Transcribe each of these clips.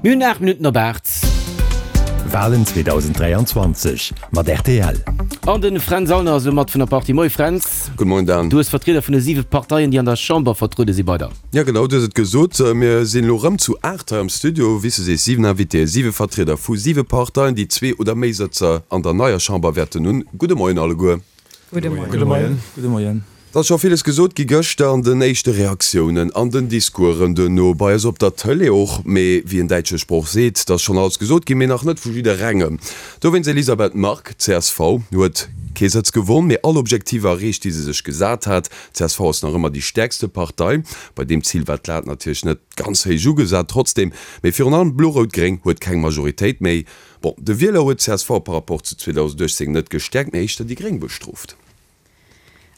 Mir hunn 8 Minutten op 8. Walen 2023 mat rtl. An de Fränz Aulner ass elo mat vun der Partie. Moie Fränz. Gudde Moien Dan. Du hues Vertrieder vun de 7 Parteien, déi an der Chamber vertruede si bei der. Jo genau, du hues et gesot. Mir sinn elo rëm zu 8 hei am Studio. Wéi s du sees, 7 Invitéen, 7 Vertrieder vu 7 Parteien, déi zwee oder méi Sëtzer an der neier Chamber wäerten hunn. Gudde Moien alleguer. Gudde Moien. Gudde Moien. Gudde Moien. Et ass scho villes gesot gi gëschter an den éischte Reaktiounen, an den Discoursen duerno, bei eis op der Tëlee och. Mee wéi en däitsche Sproch seet, et ass schonn alles gesot ginn, mee nach net vu jidderengem. Dowéinst, Elisabeth Margue, csv, huet kee Sëtz gewonn, mee all Objektiver erreecht, déi se sech gesat hat. Csv ass nach ëmmer déi stäerkste Partei. Bei deem Zil war d'Lat natierlech net ganz héich ugesat. Trotzdeem, mee virun allem Blo-Rout-Gréng huet keng Majoritéit méi. Bon, de Wieler huet csv par rapport zu 2018 net gestäerkt, mee éischter déi Gréng bestrooft.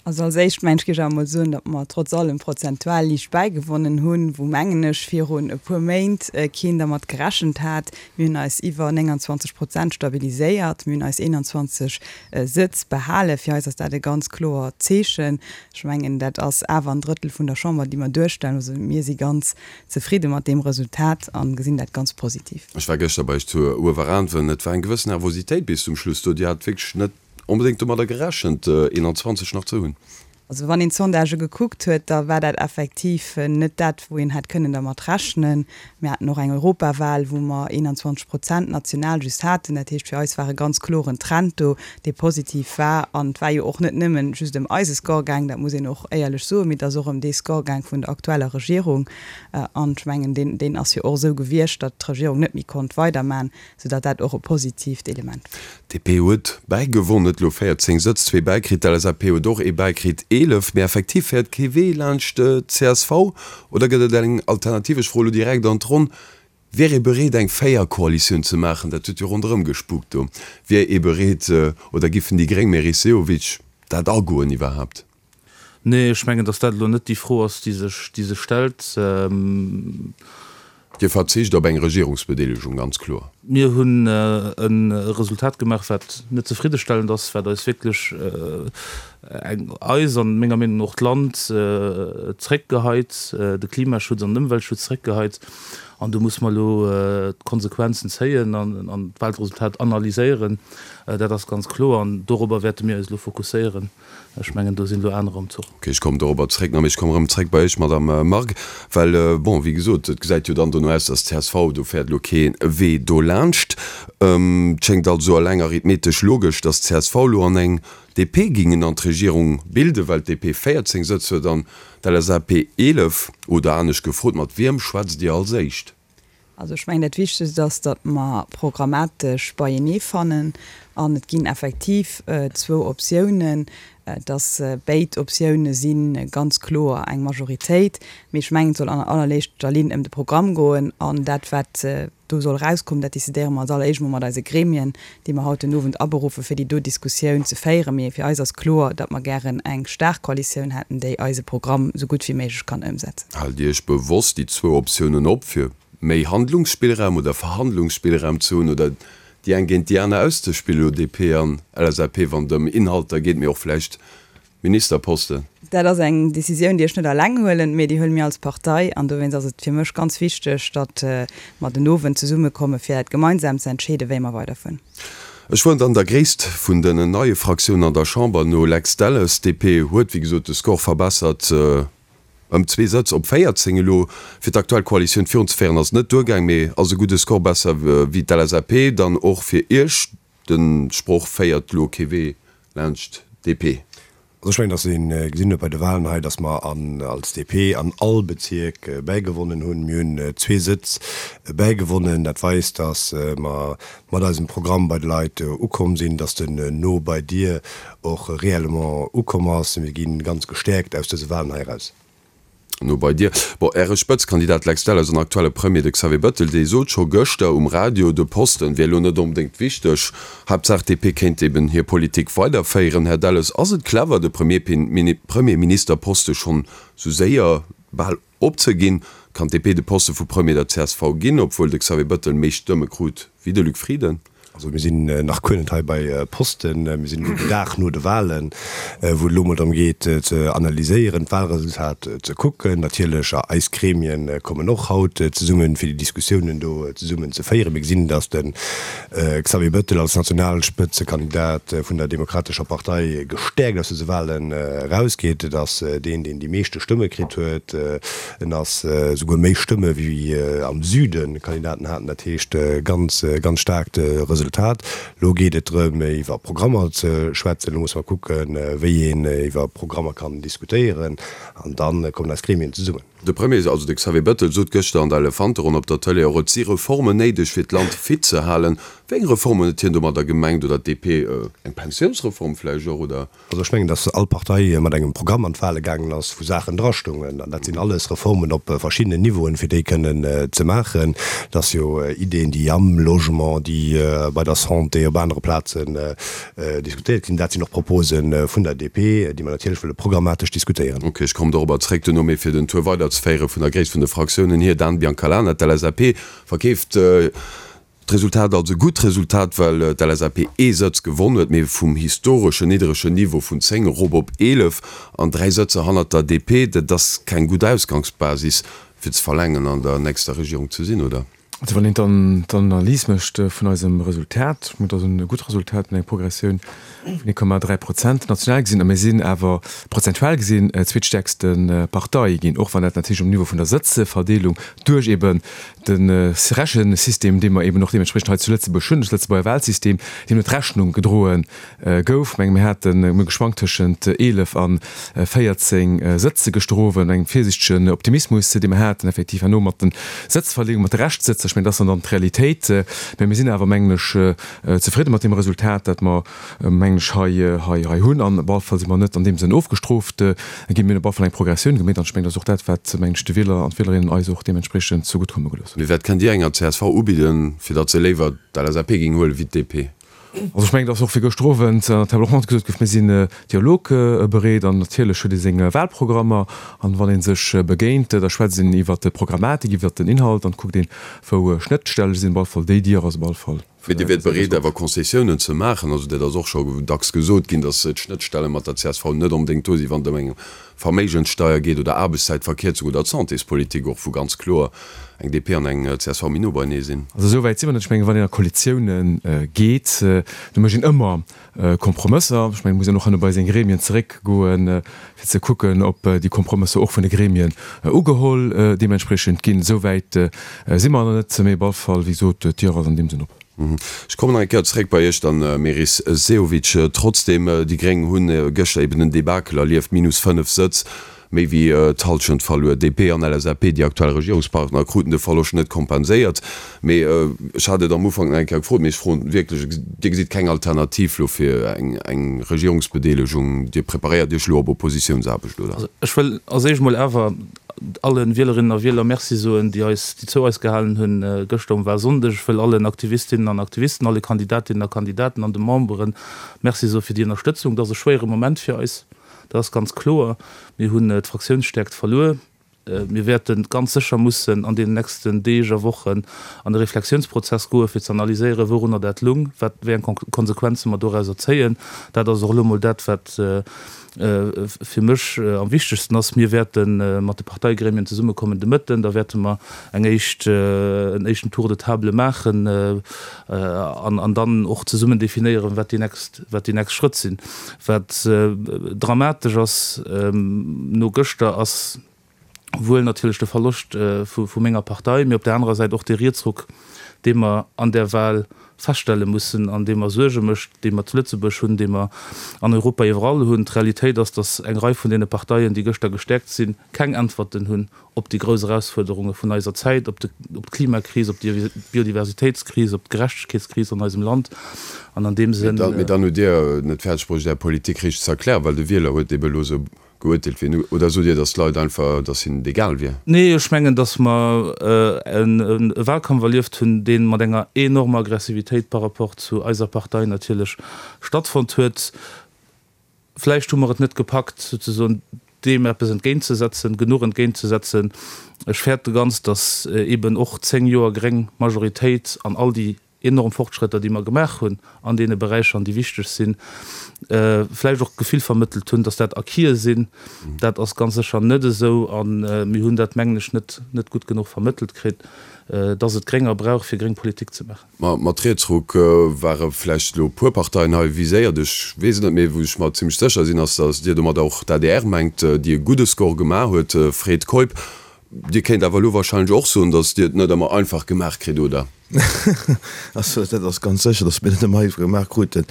Also als éischt mengen ech géif ech awer mol soen, datt mer trotz allem prozentual liicht bäigewonnen hunn, wou mengen ech virun e puer Méint keen dermat gerechent hat. Mir hunn eis iwwer 29 Prozent stabiliséiert, mir hunn eis 21 Sëtz behalen. Fir eis ass dat e ganz kloert Zeechen. Ech mengen dat ass awer en Drëttel vun der Chamber, déi mer duerstellen. Also mir si ganz zefridde mat deem Resultat a gesinn dat ganz positiv. Ech war gëschter bei iech zu Ueweraanwen. Et war eng gewëssen Nervositéit bis zum Schluss do. Dir hat wierklech net onbedéngt domadder gerechent, 21 nach ze hunn. Also wann een d'Sondagë gekuckt huet, da war dat effektiv net dat, wou een hätt kënnen dermat rechnen. Mir haten och eng Europawal, wou mer 21 Prozent national just haten. Dat heescht, fir eis war e ganz kloren Trend do, dee positiv war. An et war jo och net nëmmen just ëm eise Score gaang, dat muss een och éierlech soen, mee et ass och ëm dee Score gaang vun der aktueller Regierung. An ech mengen, deen, deen ass jo och esou gewiescht, datt d'Regierung net méi konnt weiderman, soudatt dat och e positiivt Element war. D'DP huet bäigewonn, huet elo 14 Sëtz, zwee bäikritt. D'LSAP huet och ee bäikritt, 11. Mee effektiv féiert kee Wee laanscht d'CSV. Oder gëtt et eng Alternativ? Ech froe lo direkt an d'Ronn, Wier ee bereet eng Véierkoalitioun ze maachen? Dat huet jo ronderëm gespukt do. Wier ee bereet oder giffen déi Gréng, Meris Sehovic, dat agoen iwwerhaapt? Nee, ech mengen, datt dat elo net déi Fro ass, déi sech, déi sech stellt. Dir verzicht op eng Regierungsbedeelegung, ganz kloer. Mir hunn e Resultat gemaach, wat net zefriddestellend ass, wat eis wierklech eng, eis an menger Meenung no och d'Land zréckgeheit, de Klimaschutz an den Ëmweltschutz zréckgeheit. An do musse mer elo d'Konsequenzen zéien an d'Wahlresultat analyséieren. Dat ass ganz kloer an dorobber wäerte mir eis elo fokusséieren. Ech mengen, do sinn elo anerer um Zuch. Ok, ech kommen dorobber zréck. Mee ech kommen erëm zréck bei Iech, Madame Margue, well, bon, wéi gesot, et gesäit jo dann dono aus, dass csv, do féiert elo kee Wee dolaanscht. Et schéngt also eleng arithmetesch logesch, dass csv elo an eng DP gingen an d'Regierung bilden, well d'DP 14 Sëtz huet an d'LSAP 11. Oder anescht gefrot, mat wiem schwätzt Dir als éischt? Also ech mengen, dat Wichtegst ass, datt mer programmatesch beienee fannen. An et ginn effektiv zwou Optiounen, datt béid Optioune si ganz kloer eng Majoritéit. Mee ech mengen, et soll an allerléischter Linn ëm de Programm goen. An dat, wat do soll erauskommen, dat decidéiere mer als alleréischt emol mat eise Gremien, déi mer haut den Owend aberuffe fir déi do Diskussioun ze féieren. Mee fir eis ass kloer, datt mer gären eng staark Koalitioun hätten, déi eise Programm esou gutt wéi méiglech kann ëmsetzen. Haalt Dir Iech bewosst déi zwou Optiounen op, fir méi Handlungsspillraum oder Verhandlungsspillraum ze hunn oder déi eng géint déi aner auszespillen, elo DP an LSAP, wann et ëm Inhalter geet, mee och vläicht Ministerposten? Dat ass eng Decisioun, déi ech net alleng huelen, mee déi huele mir als Partei. An dowéinst ass et fir mech ganz wichteg, datt mer den Owend zesummekomme fir dat gemeinsam ze entscheeden, wéi mer weiderfueren. Ech fueren dann der gréisst vun den neie Fraktiounen an der Chamber no, Lex Delles. DP huet, wéi gesot, de Score verbessert ëm zwee Sëtz op 14 elo. Fir d'aktuell Koalitioun virunzeféieren ass et net duergaang, mee ass e gudde Score, besser wéi d'LSAP. Dann och fir Iech, De Sproch féiert lo kee Wee laanscht DP. Also ech mengen, datt ee gesinn huet bei de Wahlen hei, datt mer an als DP an all Bezierk bäigewonnen hunn. Mir hunn zwee Sëtz bäigewonnen. Dat weist, datt mer mat eisem Programm bei de Leit ukomm sinn, datt den No bei dir och réellement ukomm ass. Mir gi ganz gestäerkt aus dëse Wahlen hei eraus. No bei dir. Bon, Äre Spëtzkandidat Lex Delles an aktuelle Premier, de Xavier Bettel, dee sot scho gëschter um Radio, de Posten wier elo net onbedéngt wichteg, Haaptsaach d'DP kéint eben hir Politik weiderféieren. Här Delles, ass et clever, de Premierministerposte schonn sou séier bal opzeginn? Kann d'DP de Poste vu Premier der csv ginn, obwuel de Xavier Bettel méi Stëmme krut wéi de Luc Frieden? Also mir sinn nach guer net hei bei Posten. Mir sinn elo den Dag no de Wahlen, wou et elo emol drëm geet ze analyséieren, d'Wahlresultat ze kucken. Natierlech eis Gremien kommen och haut zesummen, fir déi Diskussiounen do zesummen ze féieren. Mir gesinn, datt de Xavier Bettel als Nationalspëtzekandidat vun der Demokratescher Partei gestäerkt aus dëse Wahlen erausgeet. Et ass deen, deen déi meeschte Stëmme kritt huet. En ass souguer méi Stëmme wéi am Süde Kandidaten haten. Dat heescht ganz, ganz staarkt Resultat. Elo geet et drëm iwwer Programmer ze schwätzen. Elo musse mer kucken, wéi een iwwer Programmer kann diskutéieren. An da kommen eis Gremien zesummen. De Premier, also de Xavier Bettel, sot gëschter an der Elefanteronn op der Tëlee och, et si Reformen néideg fir d'Land fit ze halen. Wéi eng Reformen huet hien domadder gemengt? Oder d'DP? Eng Pensiounsreform vläicht och, oder? Also ech mengen, datt all Partei mat engem Programm an d'Wahle gaangen ass, wou Saachen drastoungen. An dat sinn alles Reformen op verschiddenen Niveauen, fir déi kënnen ze maachen. Dat ass jo Ideen, déi am Logement, déi bei der Santé, op anere Plazen diskutéiert ginn. Dat sinn och Propose vun der DP, déi mer natierlech wëlle programmatesch diskutéieren. Ok, ech kommen dorobber zréck duerno. Mee fir den Tour weiderzeféiere vun der Gréisst vun de Fraktiounen hier, Dan Biancalana, d'LSAP verkeeft D'Resultat als e gutt Resultat, well d'LSAP ee Sëtz gewonn huet, mee vum historeschen nidderegen Niveau vun 10 erop op 11 an 3 Sëtzer hannert der DP. Dat ass keng gutt Ausgangsbasis fir ze verlaangen an der nächster Regierung ze sinn, oder? Also wann een d'Analys mécht vun eisem Resultat, ech mengen, et ass e gutt Resultat mat enger Progressioun vun 1,3 Prozent national gesinn, a mir sinn awer prozentual gesinn zweetstäerkste Partei ginn, och wann dat natierlech um Niveau vun der Sëtzeverdeelung duerch eben de Rechensystem, dee mer eben och deementspriechend hei zu Lëtzebuerg hunn, de Lëtzebuerger Wahlsystem, deem net Rechnung gedroe gouf. Ech menge mir haten, mir hu geschwankt tëschent 11 a 14 Sëtze gëschter Owend, engem virsiichtegen Optimismus, dee mer haten, effektiv herno mat de Sëtzverleeung, mat de Reschtsëtzer. Ech mengen, dat ass dann dann d'Realitéit. Mä mir sinn awer, mengen ech, zefridde mat deem Resultat, dat mer, mengen ech, hei, hei, hei hunn. An op alle Fall si mer net an deem Sënn ofgestrooft ginn. Mir hunn op alle Fall eng Progressioun gemeet. An ech mengen, dat ass och dat, wat, mengen ech, de Wieler an d'Wielerinnen eis och deementspriechend zegutt komme gelooss hunn. Mee wat kënnt Dir enger csv ubidden, fir datt se léiwer d'LSAP géing huelen, wéi d'DP? Also ech mengen, et ass och wéi gëschter Owend an der Table ronde gesot gouf, mir sinn dialogbereet an natierlech huet ee seng Wahlprogrammer an wann ee sech begéint, da schwätzt een iwwert d'Programmatik, iwwert den Inhalt an kuckt een, wou Schnëttstelle sinn. Op alle Fall déi Dier ass op alle Fall. Mee Dir wiert bereet awer Concessiounen ze maachen? Also dat ass och scho dacks gesot ginn, datt d'Schnëttstelle mat der csv net onbedéngt do sinn, wann et ëm eng Verméigenssteier geet oder Aarbechtszäitverkierzung oder d'Santéspolitik och, wou ganz kloer eng DP an eng csv méi no beienee sinn. Also esou wäit si mer net. Ech mengen, wann een a Koalitioune geet, do mécht een ëmmer Kompromësser. Ech mengen, et muss een och herno bei seng Gremien zeréckgoen, fir ze kucken, ob déi Kompromësser och vun de Gremien ugeholl deementspriechend ginn. Esou wäit si mer nach net, mee op alle Fall, wéi gesot, d'Dier ass an deem Sënn op. Ech kommen nach eng Kéier zréck bei Iech dann, Meris Sehovic. Trotzdem, déi Gréng hunn gëschter eben en Debakel erlieft, minus 5 Sëtz, méi wéi d'Hallschent verluer. DP an LSAP, déi aktuell Regierungspartner, kruten de Verloscht net kompenséiert. Mee ech hat et am Ufank nach eng Kéier gefrot, mee ech froen wierklech, Dir gesitt keng Alternativ elo fir eng Regierungsbedeelegung? Dir preparéiert Iech elo op Oppositiounsaarbecht, oder? Also ech wëll als éischt emol awer alle Wielerinnen a Wieler Merci soen, déi eis, déi zou eis gehalen hunn gëschter um Wahlsonndeg. Ech wëll allen Aktivistinnen an Aktivisten, alle Kandidatinnen a Kandidaten an de Membere Merci soe fir déi Ënnerstëtzung. Dat ass e schwéiere Moment fir eis, dat ass ganz kloer. Mir hunn d'Fraktiounsstäerkt verluer. Mir wäerte ganz sécher mussen an deenen nächsten Deeg a Wochen an e Reflexiounsprozess goe fir ze analyséieren, wourunner dat lung, wat, wéi eng Konsequenze mer dorauser zéien. Dat ass och elo mol dat, wat fir mech am wichtegsten ass, mir wäerte mat de Parteigremien zesummekommen de Mëtten, da wäerte mer eng éischt, en éischten Tour de table maachen an dann och zesummen definéieren, wat déi nächst, wat déi nächst Schrëtt sinn. Wat dramatesch ass no gëschter, ass wuel natierlech de Verloscht vu menger Partei, mee op där anerer Säit och dee Rietsruck, dee mer an där Wahl feststelle mussen an dee mer Suerge mécht, dee mer zu Lëtzebuerg hunn, dee mer an Europa iwwerall hunn. D'Realitéit ass, datt eng Rei vun deene Parteien, déi gëschter gestäerkt sinn, keng Äntwerten hunn op déi grouss Erausfuerderunge vun eiser Zäit, op d'Klimakris, op d'Biodiversitéitskris, op d'Gerechtegkeetskris an eisem Land. An an deem Sënn. Mee dann hutt Dir net fäerdeg bruecht, Är Politik richteg ze erklären, well de Wieler huet ebe elo esou Geurteelt wier. Oder sot Dir, datt d'Leit einfach, datt hinnen et egal wier? Nee, ech mengen, datt mer e Wahlkampf erlieft hunn, dee mat enger enormer Aggressivitéit par rapport zu eiser Partei natierlech stattfonnt huet. Vläicht hu mer et net gepackt, souzesoen deem eppes entgéintzesetzen, genuch entgéintzesetzen. Ech fäerte ganz, datt eeben och 10 Joer gréng Majoritéit an all déi. enorm Fortschrëtter, déi mer gemaach hunn an deene Beräicher an déi wichteg sinn, vläicht och d'Gefill vermëttelt hunn, dass dat Acquise sinn. Dat ass ganz sécher net esou a mir hunn dat, mengen ech, net net gutt genuch vermëttelt kritt, dass et Grénger brauch, fir gréng Politik ze maachen. Ma mat Rietsruck ware vläicht elo e puer Parteien hei viséiert, ech weess et net, mee wou ech mer zimlech sécher sinn, ass, dass Dir domadder och d'ADR mengt, déi e gudde Score gemaach huet. Fred Keup, Dir kéint awer elo wahrscheinlech och soen, datt Dir et net ëmmer einfach gemaach kritt, oder? Also dat ass ganz sécher, datt mir et net ëmmer einfach gemaach kruten.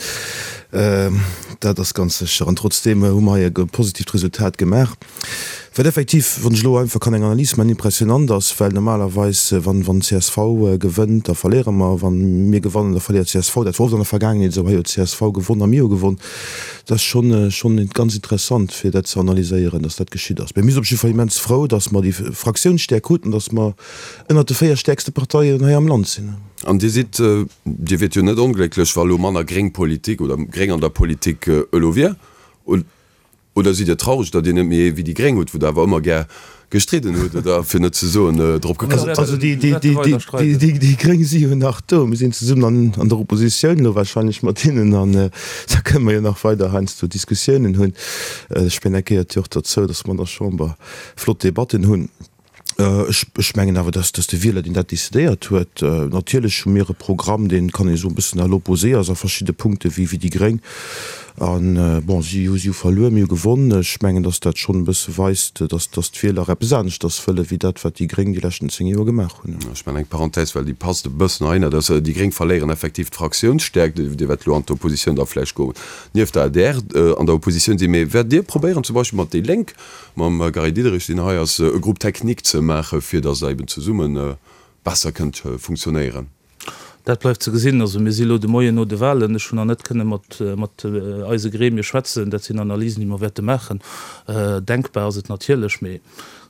Dat ass ganz sécher. An trotzdeem hu mer hei e positiivt Resultat gemaach, wat effektiv, wann ech elo einfach kann eng Analys maachen, impressionant ass, well normalerweis, wann csv gewënnt, da verléiere mer, wa mir gewannen, da verléiert csv. Dat war oft an der Vergaangenheet esou. Hei huet csv gewonn a mir hu gewonn. Dat ass schonn, schonn ganz interessant, fir dat ze analyséieren, dass dat geschitt ass. Mä mir sinn op jidde Fall immens frou, dass mer déi Fraktiounsstäerk kruten, dass mer ënnert de 4 stäerkste Parteien hei am Land sinn. An Dir sidd, Dir wiert jo net onglécklech, wa elo manner gréng Politik oder gréng an der Politik elo wier? Oder sidd Dir traureg, datt Dir net méi ee wéi déi Gréng hutt, wou Der awer ëmmer gär gestridden hutt, oder fir net ze soen drop geklappt hutt? Also déi Gréng si jo nach do. Mir sinn zesummen an der Oppositioun elo wahrscheinlech mat hinnen an da kënne mer jo nach weider heiansdo Diskussiounen hunn. Ech mengen, dat gehéiert jo och derzou, datt mer an der Chamber flott Debatten hunn. Ech mengen awer, dass de Wieler, deen dat decidéiert huet, natierlech hu mir e Programm, deen, kann ee soen, e bëssen à l'opposé ass a verschidde Punkte wéi déi Gréng. A bon, si hu si hu verluer, mir hu gewonn. Ech mengen, dass dat schonn e bësse weist, dass d'Wieler eppes aneschters wëlle wéi dat, wat déi Gréng déi leschten 10 Joer gemaach hunn. Ech maachen eng Parenthèse, well déi passt e bëssen heihinner, dass déi Gréng verléieren effektiv d'Fraktiounsstäerkt. Dir wäert elo an d'Oppositioun da vläicht goen, nieft der adr an der Oppositioun sinn. Mee wäert Dir probéieren, zum Beispill mat déi Lénk, mam Gary Diderich, deen hei ass, e Groupe technique ze maachen, fir datt Der eben zesumme besser kënnt funktionéieren? Dat bleift ze gesinn. Also mir si elo de Moien no de Wahlen. Ech hunn nach net kënne mat mat eise Gremie schwätzen. Dat sinn Analysen, déi mer wäerte maachen. Denkbar ass et natierlech, mee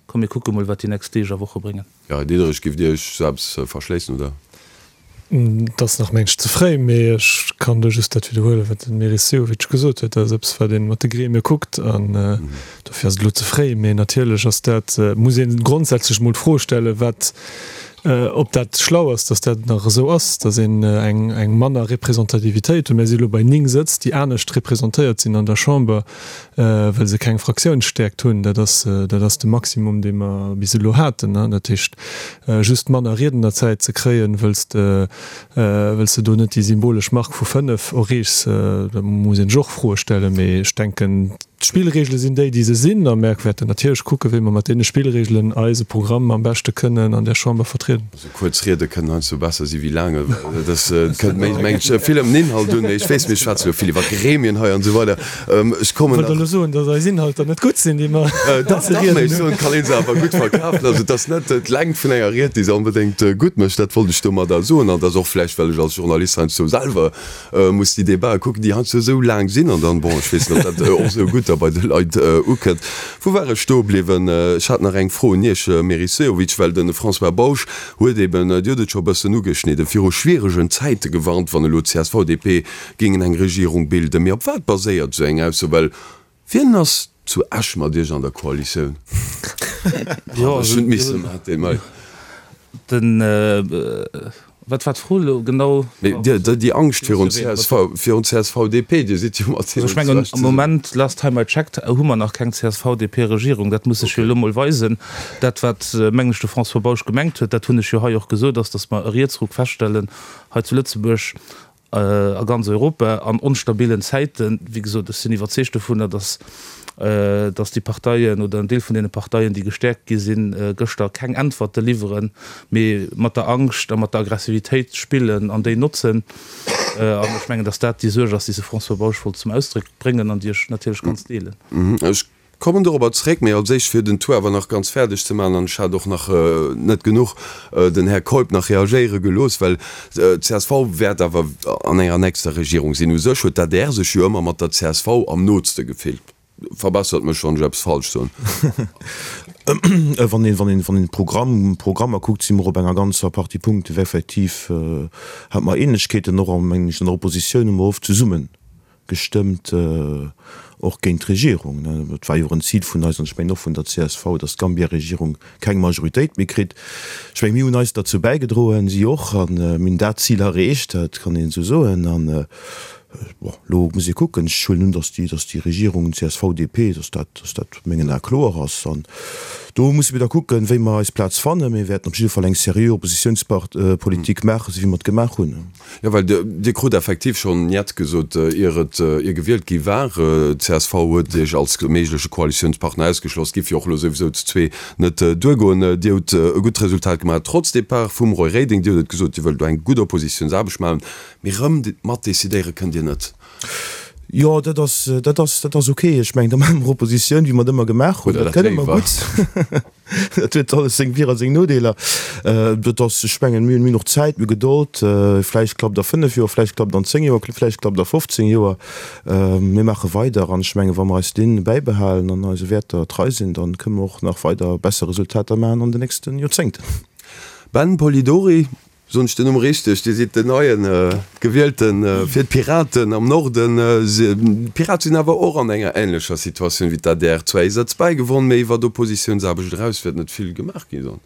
komm mir kucke mol, wat déi nächst Deeg a Woche bréngen. Gary Diderich, Giff Dir Iech sou eppes verschléissen, oder? Et ass nach, mengen ech, ze fréi, mee ech kann do just dat widderhuelen, wat de Meris Sehovic gesot huet. Dat ass eppes, wat ee mat de Gremie kuckt an dofir ass et elo ze fréi. Mee natierlech ass dat, muss ee grondsätzlech emol d'Fro stellen, wat, ob dat schlau ass, datt dat nach esou ass, datt een eng, eng manner Representativitéit huet. Mir si elo bei 9 Sëtz, déi anescht representéiert sinn an der Chamber, well se keng Fraktiounsstäerkt hunn. Dat ass, dat ass de Maximum, dee mer bis elo haten. Dat heescht, just manner Riednerzäit ze kréien, wëll s de, wëll s de do net déi symbolesch Mark vu 5 erreechs, da muss een sech och Froe stellen. Mee ech denken, d'Spillregele sinn déi, déi se sinn, a mer wäerten natierlech kucken, wéi mer mat deene Spillregelen eise Programm am beschte kënnen an där Chamber vertrieden. Esou kuerz Riede kënnen heiansdo besser si wéi laang, well dat kënnt méi, mengen ech, vill ëm den Inhalt un. Mee ech weess, mir schwätze jo vill iwwer Gremien hei an esou weider. Ech kommen nach. Wollt elo soen, datt eis Inhalter net gutt sinn, déi mer Dach, dach, mee ech soen, et kann ee se awer gutt verkafen. Also et ass net d'Längt vun enger Ried, déi se onbedéngt gutt mécht. Dat wollt ech domadder soen. An et ass och vläicht, well ech als Journalist heiansdo selwer muss déi Debatë kucken, déi heiansdo esou laang sinn an dann, bon, ech weess net, ob dat och esou gutt da bei de Leit ukënnt. Wou war ech stoe bliwwen? Ech hat nach eng Fro un Iech, Meris Sehovic, well de François Bausch huet eben, Dir hutt et scho e bëssen ugeschnidden, viru schwieregen Zäite gewarnt, wann elo csv, DP géingen eng Regierung bilden. Mee op wat baséiert esou eng Ausso? Well Wien ass zu Esch mat Iech an der Koalitioun? Jo, ech hunn misse mat deem hei. Den, wat war d'Fro elo genau? Mee Dir, déi Angscht virun csv, virun csv-DP, Dir sidd jo mat hinnen. Also ech mengen, am Moment, last time I checked, hu mer nach keng CSV-DP-Regierung. Dat muss sech jo elo mol weisen. Dat, wat, mengen ech, de François Bausch gemengt huet, dat hunn ech jo hei och gesot, ass, datt mer e Rietsruck feststellen hei zu Lëtzebuerg, a ganz Europa an onstabilen Zäiten. Wéi gesot, ech sinn iwwerzeegt dovunner, datt, datt déi Parteien oder en Deel vun deene Parteien, déi gestäerkt gi sinn gëschter, keng Äntwerte liwweren, mee mat der Angscht a mat der Aggressivitéit spillen an déi notzen. An ech mengen, datt dat déi Suerg ass, déi se François Bausch wollt zum Ausdréck bréngen an déi ech natierlech ganz deelen. Ech Kommen dorobber zréck, mee als éischt fir den Tour awer nach ganz fäerdeg ze maachen, an ech hat och nach net genuch den Här Keup nach reagéiere gelooss, well d'CSV wäert awer an enger nächster Regierung sinn. U sech huet d'ADR sech jo ëmmer mat der csv am nootste gefillt. Verbessert mech, wann ech eppes falsch soen. Wann een, wann een, wann een d'Programm, Programmer kuckt, si mer op enger ganzer Partie Punkte effektiv, hate mer Ähnlechkeeten. Och, mengen ech, an der Oppositioun hu mer oft zesumme gestëmmt. och géint d'Regierung. Et war jo och en Zil vun eis, an ech mengen och vun der csv, datt d'Gambia-Regierung keng Majoritéit méi kritt. Ech mengen, mir hunn eis derzou bäigedroen, si och, a mir hunn dat Zil erreecht, dat kann een esou soen. An, bon, elo muss ee kucken, ech huelen un, datt déi, datt déi Regierung CSV-DP, datt dat, datt dat a mengen Ae kloer ass. An do musse mir da kucken, wéi mer eis Plaz fannen. Mir wäerten op jidde Fall eng seriö Oppositiounspolitik maachen, esou wéi mer et gemaach hunn. Jo, well Dir krut effektiv schonn Njet gesot, ier et, ier gewielt gi war. Csv huet Iech als méigleche Koalitiounspartner ausgeschloss, giff jo och elo souwisou zu zwee net duergoen. Dir hutt e gutt Resultat gemaach, trotz Depart vum Roy Reding. Dir hutt et gesot, Dir wëllt elo eng gutt Oppositiounsaarbecht maachen, mee rëm matdecidéiere kënnt Dir net. Jo, dat ass, dat ass, dat ass ok. Ech mengen, da maache mer Oppositioun, wéi mer et ëmmer gemaach hunn. Oder Dat dat kënne mer léiwer. gutt. Dat huet alles seng Vir a seng Nodeeler. Dat ass, ech mengen, mir hunn och Zäit, mir hu Gedold. Vläicht klappt a 5 Joer, vläicht klappt an 10 Joer, vläicht klappt a 15 Joer. Mir maache weider an ech mengen, wa mer eis Linn bäibehalen an eise Wäerter trei sinn, da kënne mer och nach weider besser Resultater maachen an den nächste Joerzéngten. Ben Polidori, Soen ech den Numm richteg? Dir sidd den neien Gewielten fir d'Piraten am Norden. D'Pirate sinn awer och an enger änlecher Situatioun wéi d'ADR. Zwar ee Sëtz bäigewonn, mee iwwert Oppositiounsaarbecht eraus wäert net vill gemaach gi sinn.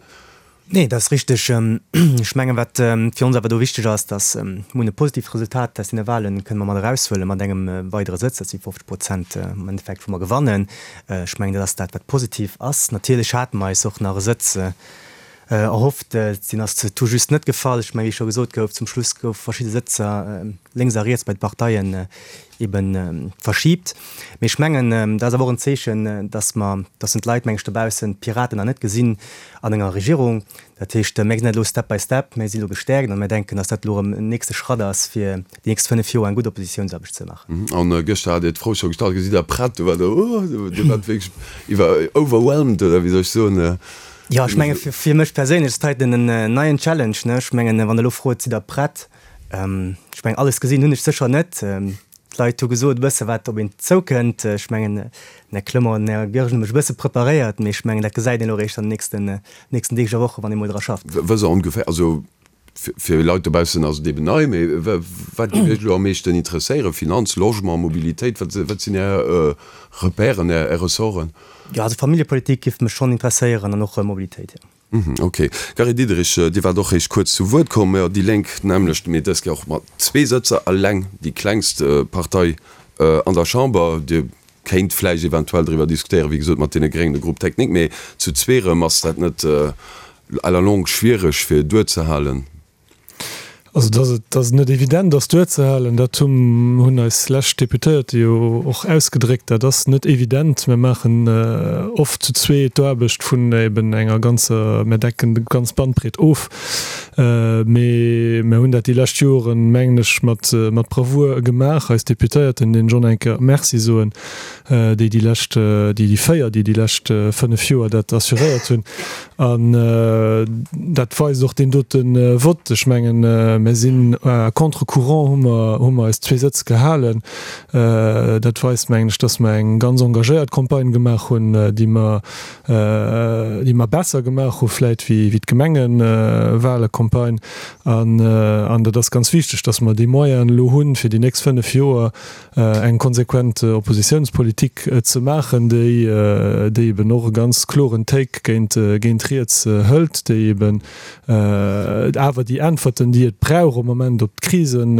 Nee, dat ass richteg. Ech mengen, wat fir ons awer do wichteg ass, datt mir hunn e positiivt Resultat aus deene Wahlen kënne mer mat eraushuelen, mat engem weidere Sëtz, dat si 50 Prozent am Endeffekt, wou mer gewannen. Ech mengen, dat ass dat, wat positiv ass. Natierlech hate mer eis och nach e Sëtz Erhofft. Deen ass tout juste net gefall. Ech mengen, wéi scho gesot gouf, zum Schluss goufe verschidde Sëtzer lénks a riets bei de Parteien ebe verschiibt. Mee ech mengen, dat ass awer och en Zeechen, dass mer, dass d'Leit, meng ech, dobaussen d'Piraten nach net gesinn an enger Regierung. Dat heescht, mir gesinn dat elo step by step, mir si elo gestäerkt a mir denken, dass dat elo erëm en nächste Schratt ass, fir déi nächst 5 Joer eng gutt Oppositiounsaarbecht ze maachen. An gëschter hat Dir d'Fro scho gestallt, Gesitt Der prett? Do war der, oh, Dir waart wierklech iwwer, overwhelmed, oder wéi soll ech soen? Jo, ech menge fir mech perséinlech ass dat heiten en neien Challenge, ne. Ech mengen, wann Der elo frot, Sidd Der prett? Ech mengen, alles gesinn hunn ech sécher net. D'Leit hu gesot e bësse wat op een zoukënnt. Ech mengen, den Här Clement an den Här Goergen hu mech e bësse preparéiert, mee ech mengen, dat gesäit een elo eréischt an den nächsten, nächsten Deeg a Wochen, wann ee mol dra schafft. Wësst Der ongeféier, also fir Leit dobaussen ass et eben nei, mee wat géif Iech elo am meeschten interesséieren? Finanz, Logement, Mobilitéit, wat, wat sinn Är Repèren, Är Ressorten? Jo, also Familljepolitik giff mech schonn interesséieren an och Mobilitéit, jo. Mhm, ok. Gary Diderich, Dir waart och réischt kuerz zu Wuert komm. Jo, déi Lénk d'nämmlecht, mee dës Kéier och mat zwee Sëtzer, eleng déi klengst Partei an der Chamber. Dir kéint vläicht eventuell driwwer diskutéieren, wéi gesot, mat deene Gréngen de Groupe technique, mee zu zwee erëm, ass dat net à la longue schwiereg fir duerzehalen? Also dass et, dass et net evident ass duerzehalen, dat hunn, hunn eis lescht Deputéierte jo och ausgedréckt. Dat ass net evident. Mir maachen oft zu zwee d'Aarbecht vun eben enger ganzer, mir decken déi ganz Bandbreet of. Mee mir hunn dat déi lescht Joren, mengen ech, mat, mat Bravour gemaach. Eis Deputéierten, deenen ech och nach eng Kéier Merci soen, déi déi lescht, déi déi 4, déi déi lescht 5 Joer dat assuréiert hunn. An dat weist och deen dote Vott. Ech mengen, mir sinn à contre-courant, hu mer, hu mer eis zwee Sëtz gehalen. Dat weist, mengen ech, dass mer eng ganz engagéiert Campagne gemaach hunn, déi mer, déi mer besser gemaach hu vläit wéi, wéi d'Gemengewahlecampagne. An, an dat ass ganz wichteg, dass mer déi Moyenen elo hunn, fir déi nächst 5 Joer eng konsequent Oppositiounspolitik ze maachen, déi déi eben och e ganz kloren Take géint géint riets hëlt, déi eben awer déi Äntwerten, déi et brauch am Moment op d'Krisen,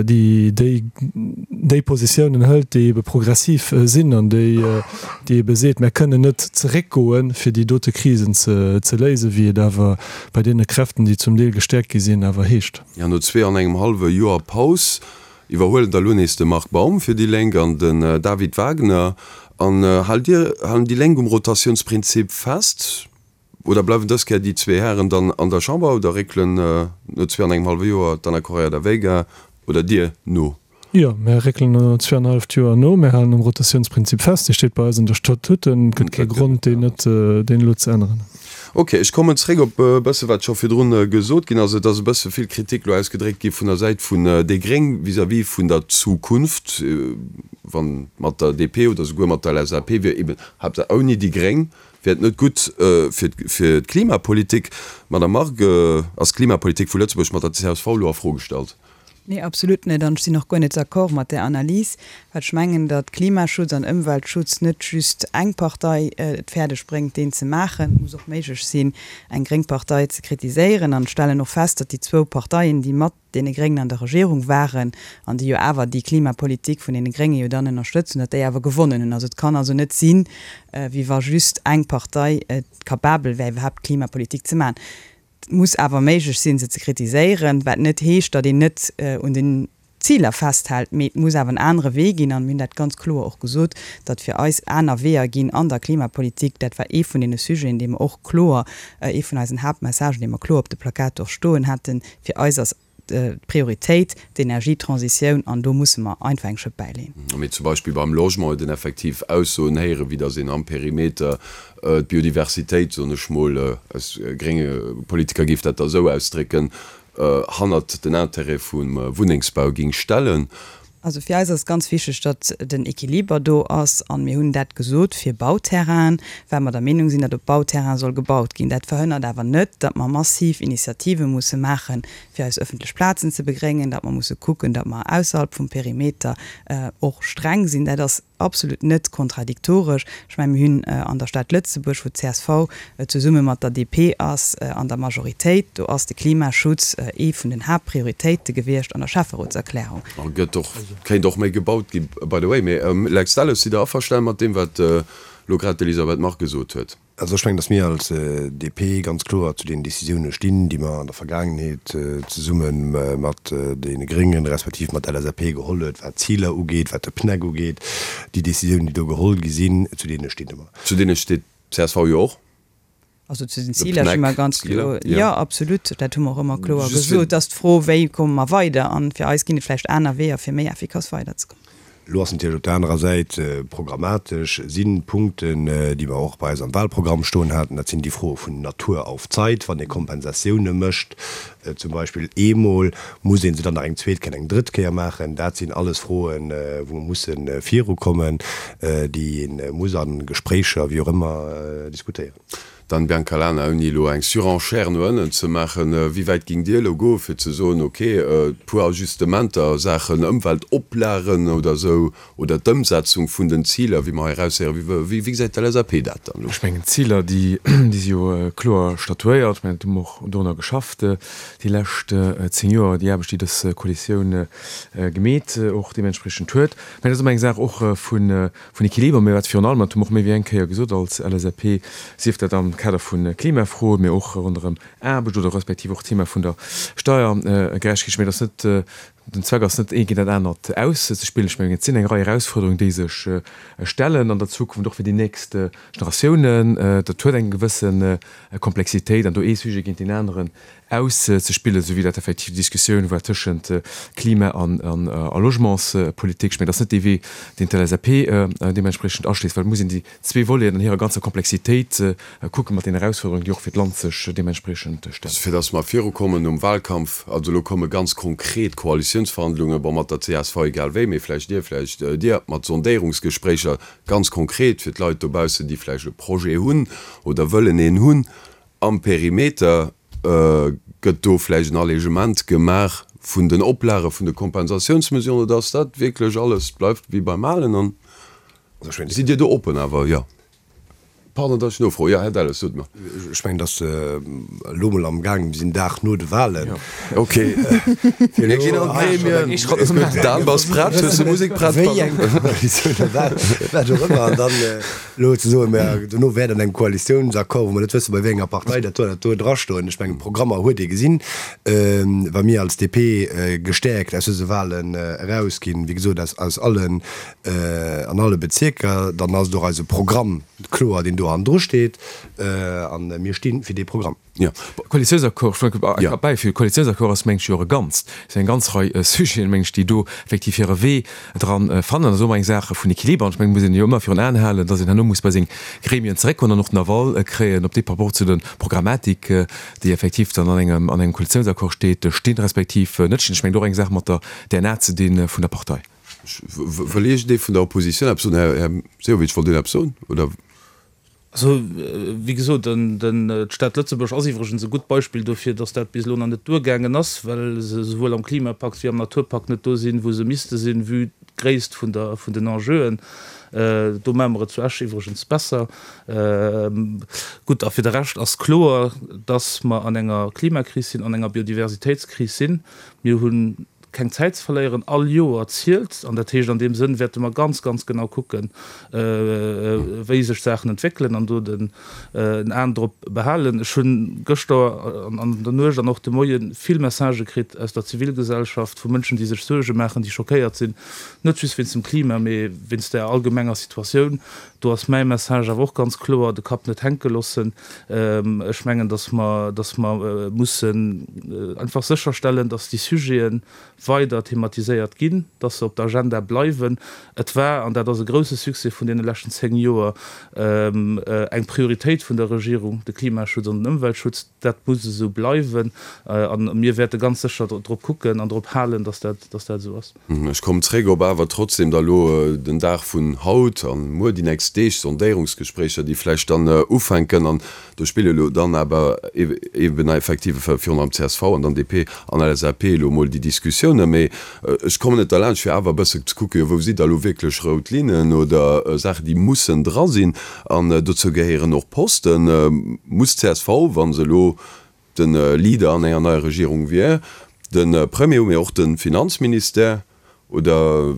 déi déi déi Positiounen hëlt, déi ebe progressiv sinn an déi déi ebe seet, mär kënnen net zeréckgoen, fir déi dote Krisen ze ze léisen, wéi et awer bei deene Kräften, déi zum Deel gestäerkt gi sinn, awer heescht. Jo, no zwee an engem hallwe Joer Paus iwwerhuelen da lo nees de Marc Baum fir déi Lénk an den David Wagner. An haalt Dir, halen déi Lénk um Rotatiounsprinzip fest oder bleiwen dës Kéier déi zwee Hären dann an der Chamber oder réckelen no zwee an engem hallwe Joer d'Anna Correia da Veiga oder Dir no? Jo, mär réckelen no zweeanenhalleft Joer no. Mär halen um Rotatiounsprinzip fest. Dee steet bei eis an der Statuten. Et gëtt kee Grond, deen net, deen elo ze änneren. Ok, ech kommen zréck op e bësse wat scho virdrun gesot ginn ass. Et ass e bësse vill Kritik elo ausgedréckt gi vun der Säit vun déi Gréng vis-à-vis vun der Zukunft, wann mat der DP oder souguer mat der LSAP wier, eben haaptsächlech ouni déi Gréng wier et net gutt fir fir d'Klimapolitik. Madame Margue, ass d'Klimapolitik vu Lëtzebuerg mat der csv elo a Fro gestallt? Nee, absolut net. An ech sinn och guer net d'accord mat där Analys, well ech mengen, datt Klimaschutz an Ëmweltschutz net just eng Partei et fäerdeg bréngt, deen ze maachen. Et muss och méiglech sinn, eng gréng Partei ze kritiséieren. An ech stellen och fest, datt déi zwou Parteien, déi mat deene Gréngen an der Regierung waren an déi jo awer déi Klimapolitik vun deene Grénge jo dann ënnerstëtzt hunn, datt déi awer gewonnen hunn. Also et kann also net sinn, wéi wa just eng Partei capabel wär, iwwerhaapt Klimapolitik ze maachen. Et muss awer méiglech sinn, se ze kritiséieren, wat net heescht, datt een net un den Ziler festhält, mee et muss awer en anere Wee ginn. An mir hunn dat ganz kloer och gesot, datt fir eis aner Weeër ginn an der Klimapolitik. Dat war ee vun deene Sujeten, dee mer och kloer, ee vun eisen Haaptmessagen, dee mer kloer op de Plakater och stoen haten. Fir eis ass d'Prioritéit d'Energietransitioun an do musse mer einfach eng Schëpp bäileen. Mee zum Beispill beim Logement huet een effektiv Aussoen héieren, wéi datt een am Perimeter d'Biodiversitéit, soen ech mol, als grénge Politiker géif dat da esou ausdrécken, hannert den Intérêt vum Wunnengsbau géing stellen. Also fir eis ass ganz wichteg, datt den Equiliber do ass. An mir hunn dat gesot fir Bauterrainen, well mer der Meenung sinn, datt op Bauterraine soll gebaut ginn. Dat verhënnert awer net, datt mer massiv Initiative musse maachen, fir eis öffentlech Plazen ze begréngen, datt mer musse kucken, datt mer ausserhalb vum Perimeter och streng sinn. Dat ass absolut net kontradiktoresch. Ech mengen, mir hunn an der Stad Lëtzebuerg, wou d'CSV zesumme mat der DP ass an der Majoritéit, do ass de Klimaschutz ee vun den Haaptprioritéite gewiescht an der Schäfferotserklärung. A gëtt och, kéint och méi gebaut gi by the way. Mee Lex Delles, sidd Der averstanen mat deem, wat elo grad d'Elisabeth Margue gesot huet? Also ech mengen, datt mir als DP ganz kloer zu deenen Décisioune stinn, déi mer an der Vergaangenheet zesumme mat deene Gréngen, respektiv mat LSAP geholl huet, wat d'Ziler ugeet, wat de PNEC ugeet. Déi Décisiounen, déi do geholl gi sinn, zu deene sti mer. Zu deene steet d'CSV jo och. Also zu den Ziler sti mer ganz kloer. Jo, absolut, dat hu mer och ëmmer kloer gesot. Et ass d'Fro, wéi komme mer weider? An fir eis ginn et vläicht aner Weeër, fir méi effikass weiderzekommen. Elo ass natierlech op der anerer Säit programmatesch si Punkten, déi mer och bei eis am Wahlprogramm stoen haten, dat sinn déi Froe vun Natur auf Zeit, wann ee Kompensatioune mécht zum Beispill eemol, muss ee se dann nach eng zweet Kéier an eng drëtt Kéier maachen. Dat sinn alles Froen, wou mer musse virukommen, déi ee muss a Gespréicher, wéi och ëmmer, diskutéieren. Dan Biancalana, Ouni elo eng Surenchère no ënnen ze maachen, wéi wäit géingt Dir elo goen, fir ze soen, ok, e puer Ajustementer a Saachen Ëmweltoplagen oder esou, oder d'Ëmsetzung vun den Ziler, wéi mer hei eraushéieren, wéi gesäit d'LSAP dat dann elo? Ech mengen, d'Ziler, déi si jo kloer statuéiert. Ech mengen, do hu mer och dorunner geschafft déi lescht 10 Joer, déi Aarbecht, déi dës Koalitioun gemeet och deementspriechend huet. Mä dat ass ëmmer eng Saach och vun Vun Equiliber, mä wat virun allem, dat hu mer och méi wéi eng Kéier gesot als LSAP, sief dat am Kader vu Klimafroen, mä och ronderëm Aarbecht oder respektiv och d'Thema vun der Steiergerechtegkeet, ech mengen, dat ass net, den Zweck ass net, eent géint dat anert auszespillen. Ech mengen, et sinn eng Rei Erausfuerderungen, déi sech stellen an der Zukunft, och fir déi nächst Generatiounen. Dat huet eng gewësse Komplexitéit an do ee Sujet géint deen aneren auszespillen, esou wéi dat effektiv d'Diskussioun war tëschent Klima a Logementspolitik. Ech mengen, dat ass net dee Wee, deen d'LSAP deementspriechend aschléisst, well et muss een déi zwee Voleten an hirer ganzer Komplexitéit kucken, mat den Erausfuerderungen, déi och fir d'Land sech deementspriechend stellen. Fir datt mer virukommen nom Wahlkampf, also elo komme ganz konkret Koalitiounsverhandlungen, bon, mat der csv egal wéi, mee vläicht Dir, vläicht Dir, mat Sondéierungsgespréicher, ganz konkret fir d'Leit dobaussen, déi vläicht e Projet hunn oder wëllen een hunn am Perimeter, Gëtt do vläicht en Allégement gemaach vun den Oplage vun de Kompensatiounsmesuren oder ass dat wierklech alles bleift wéi beim Alen? An sidd Dir do oppen awer? Jo. Pardon, datt ech nofroen. Jo, Här Delles, sot mer. Ech mengen, datt elo mol am gaang, mir sinn Dag no de Wahlen. Ok. Mir ginn an d'Gremien. Dan, bass prett? Hues de Musek prett? Wéi eng Koalitioun a wat och ëmmer. An dann Elo ze soen, mä dono wäert an engem Koalitiounsaccord, wou mer net wëssen, bei wéi enger Partei dat do an dat do drastoen, ech mengen, Programmer huet ee gesinn, wa mir als DP gestäerkt aus dëse Wahlen erausginn, wéi gesot, aus, aus allen, an alle Bezierker, dann ass et och eise Programm kloer, deen do hannendru steet, a mir sti fir dee Programm. Jo, Koalitiounsaccord, ech wëll e Kap bäifügen, Koalitiounsaccord ass, meng ech, jo och e Ganzt. Et sinn eng ganz Rei Sujeten, meng ech, déi do effektiv hire Wee dran fannen. Dat ass och ëmmer eng Saach vun Equiliber. An ech mengen, et muss een jo ëmmer virun Aen halen, dass een herno muss bei seng Gremien zeréckkommen an och den Aval kréien, ob déi par rapport zu der Programmatik, déi effektiv dann an engem, an engem Koalitiounsaccord steet, stinn, respektiv net stinn. Ech mengen, et huet och eng Saach mat der DNA ze di vun der Partei. Wëll iergendee vun der Oppositioun eppes soen? Här Sehovic, wollt Dir eppes soen, oder? Also, wéi gesot, d'Stad Lëtzebuerg ass iwwregens e gutt Beispill dofir, dass dat bis elo nach net duergaangen ass, well se esouwuel am Klimapakt wéi am Naturpakt net do sinn, wou se misste sinn, vue d'Gréisst vun der, vun den Enjeuen. Do maache mer et zu Esch iwwregens besser. Gutt, a fir de Rescht ass kloer, dass mer an enger Klimakris sinn, an enger Biodiversitéitskris sinn. Mir hunn keng Zäit ze verléieren, all Joer zielt. An dat heescht, an deem Sënn wäerte mer ganz, ganz genau kucken, wéi sech d'Saachen entwéckelen an do den Aen drop behalen. Ech hu gëschter an der Nuecht an och de Moie vill Messagë kritt aus der Zivilgesellschaft, vu Mënschen, déi sech Suerge maachen, déi schockéiert sinn, net just wéinst dem Klima, mee wéinst der allgemenger Situatioun. Do ass mäi Message awer och ganz kloer, de Kapp net hänke loossen. Ech mengen, datt mer, datt mer mussen einfach sécherstellen, datt déi Sujete weider thematiséiert ginn, datt se op der Agenda bleiwen. Et war, an dat ass e grouse Succès vun deene leschten 10 Joer, eng Prioritéit vun der Regierung, de Klimaschutz an den Ëmweltschutz. Dat muss esou bleiwen a mir wäerte ganz sécher drop kucken an drop halen, datt dat, datt dat esou ass. Ech kommen zréck op awer trotzdem da lo den Dag vun haut an muer, déi nächst Deeg, Sondéierungsgespréicher, déi vläicht dann ufänken. An do spille lo dann awer eben effektiv virun allem csv an dann DP an LSAP elo emol déi Diskussiounen. Mee ech kommen net derlaanscht, fir awer e bësse ze kucken, jo wou si da lo wierklech rout Linnen oder Saachen, déi mussen dra sinn. An dozou gehéieren och Posten. Muss csv, wa se elo de Leader an enger neier Regierung wier, de Premier hu, mee och de Finanzministère, oder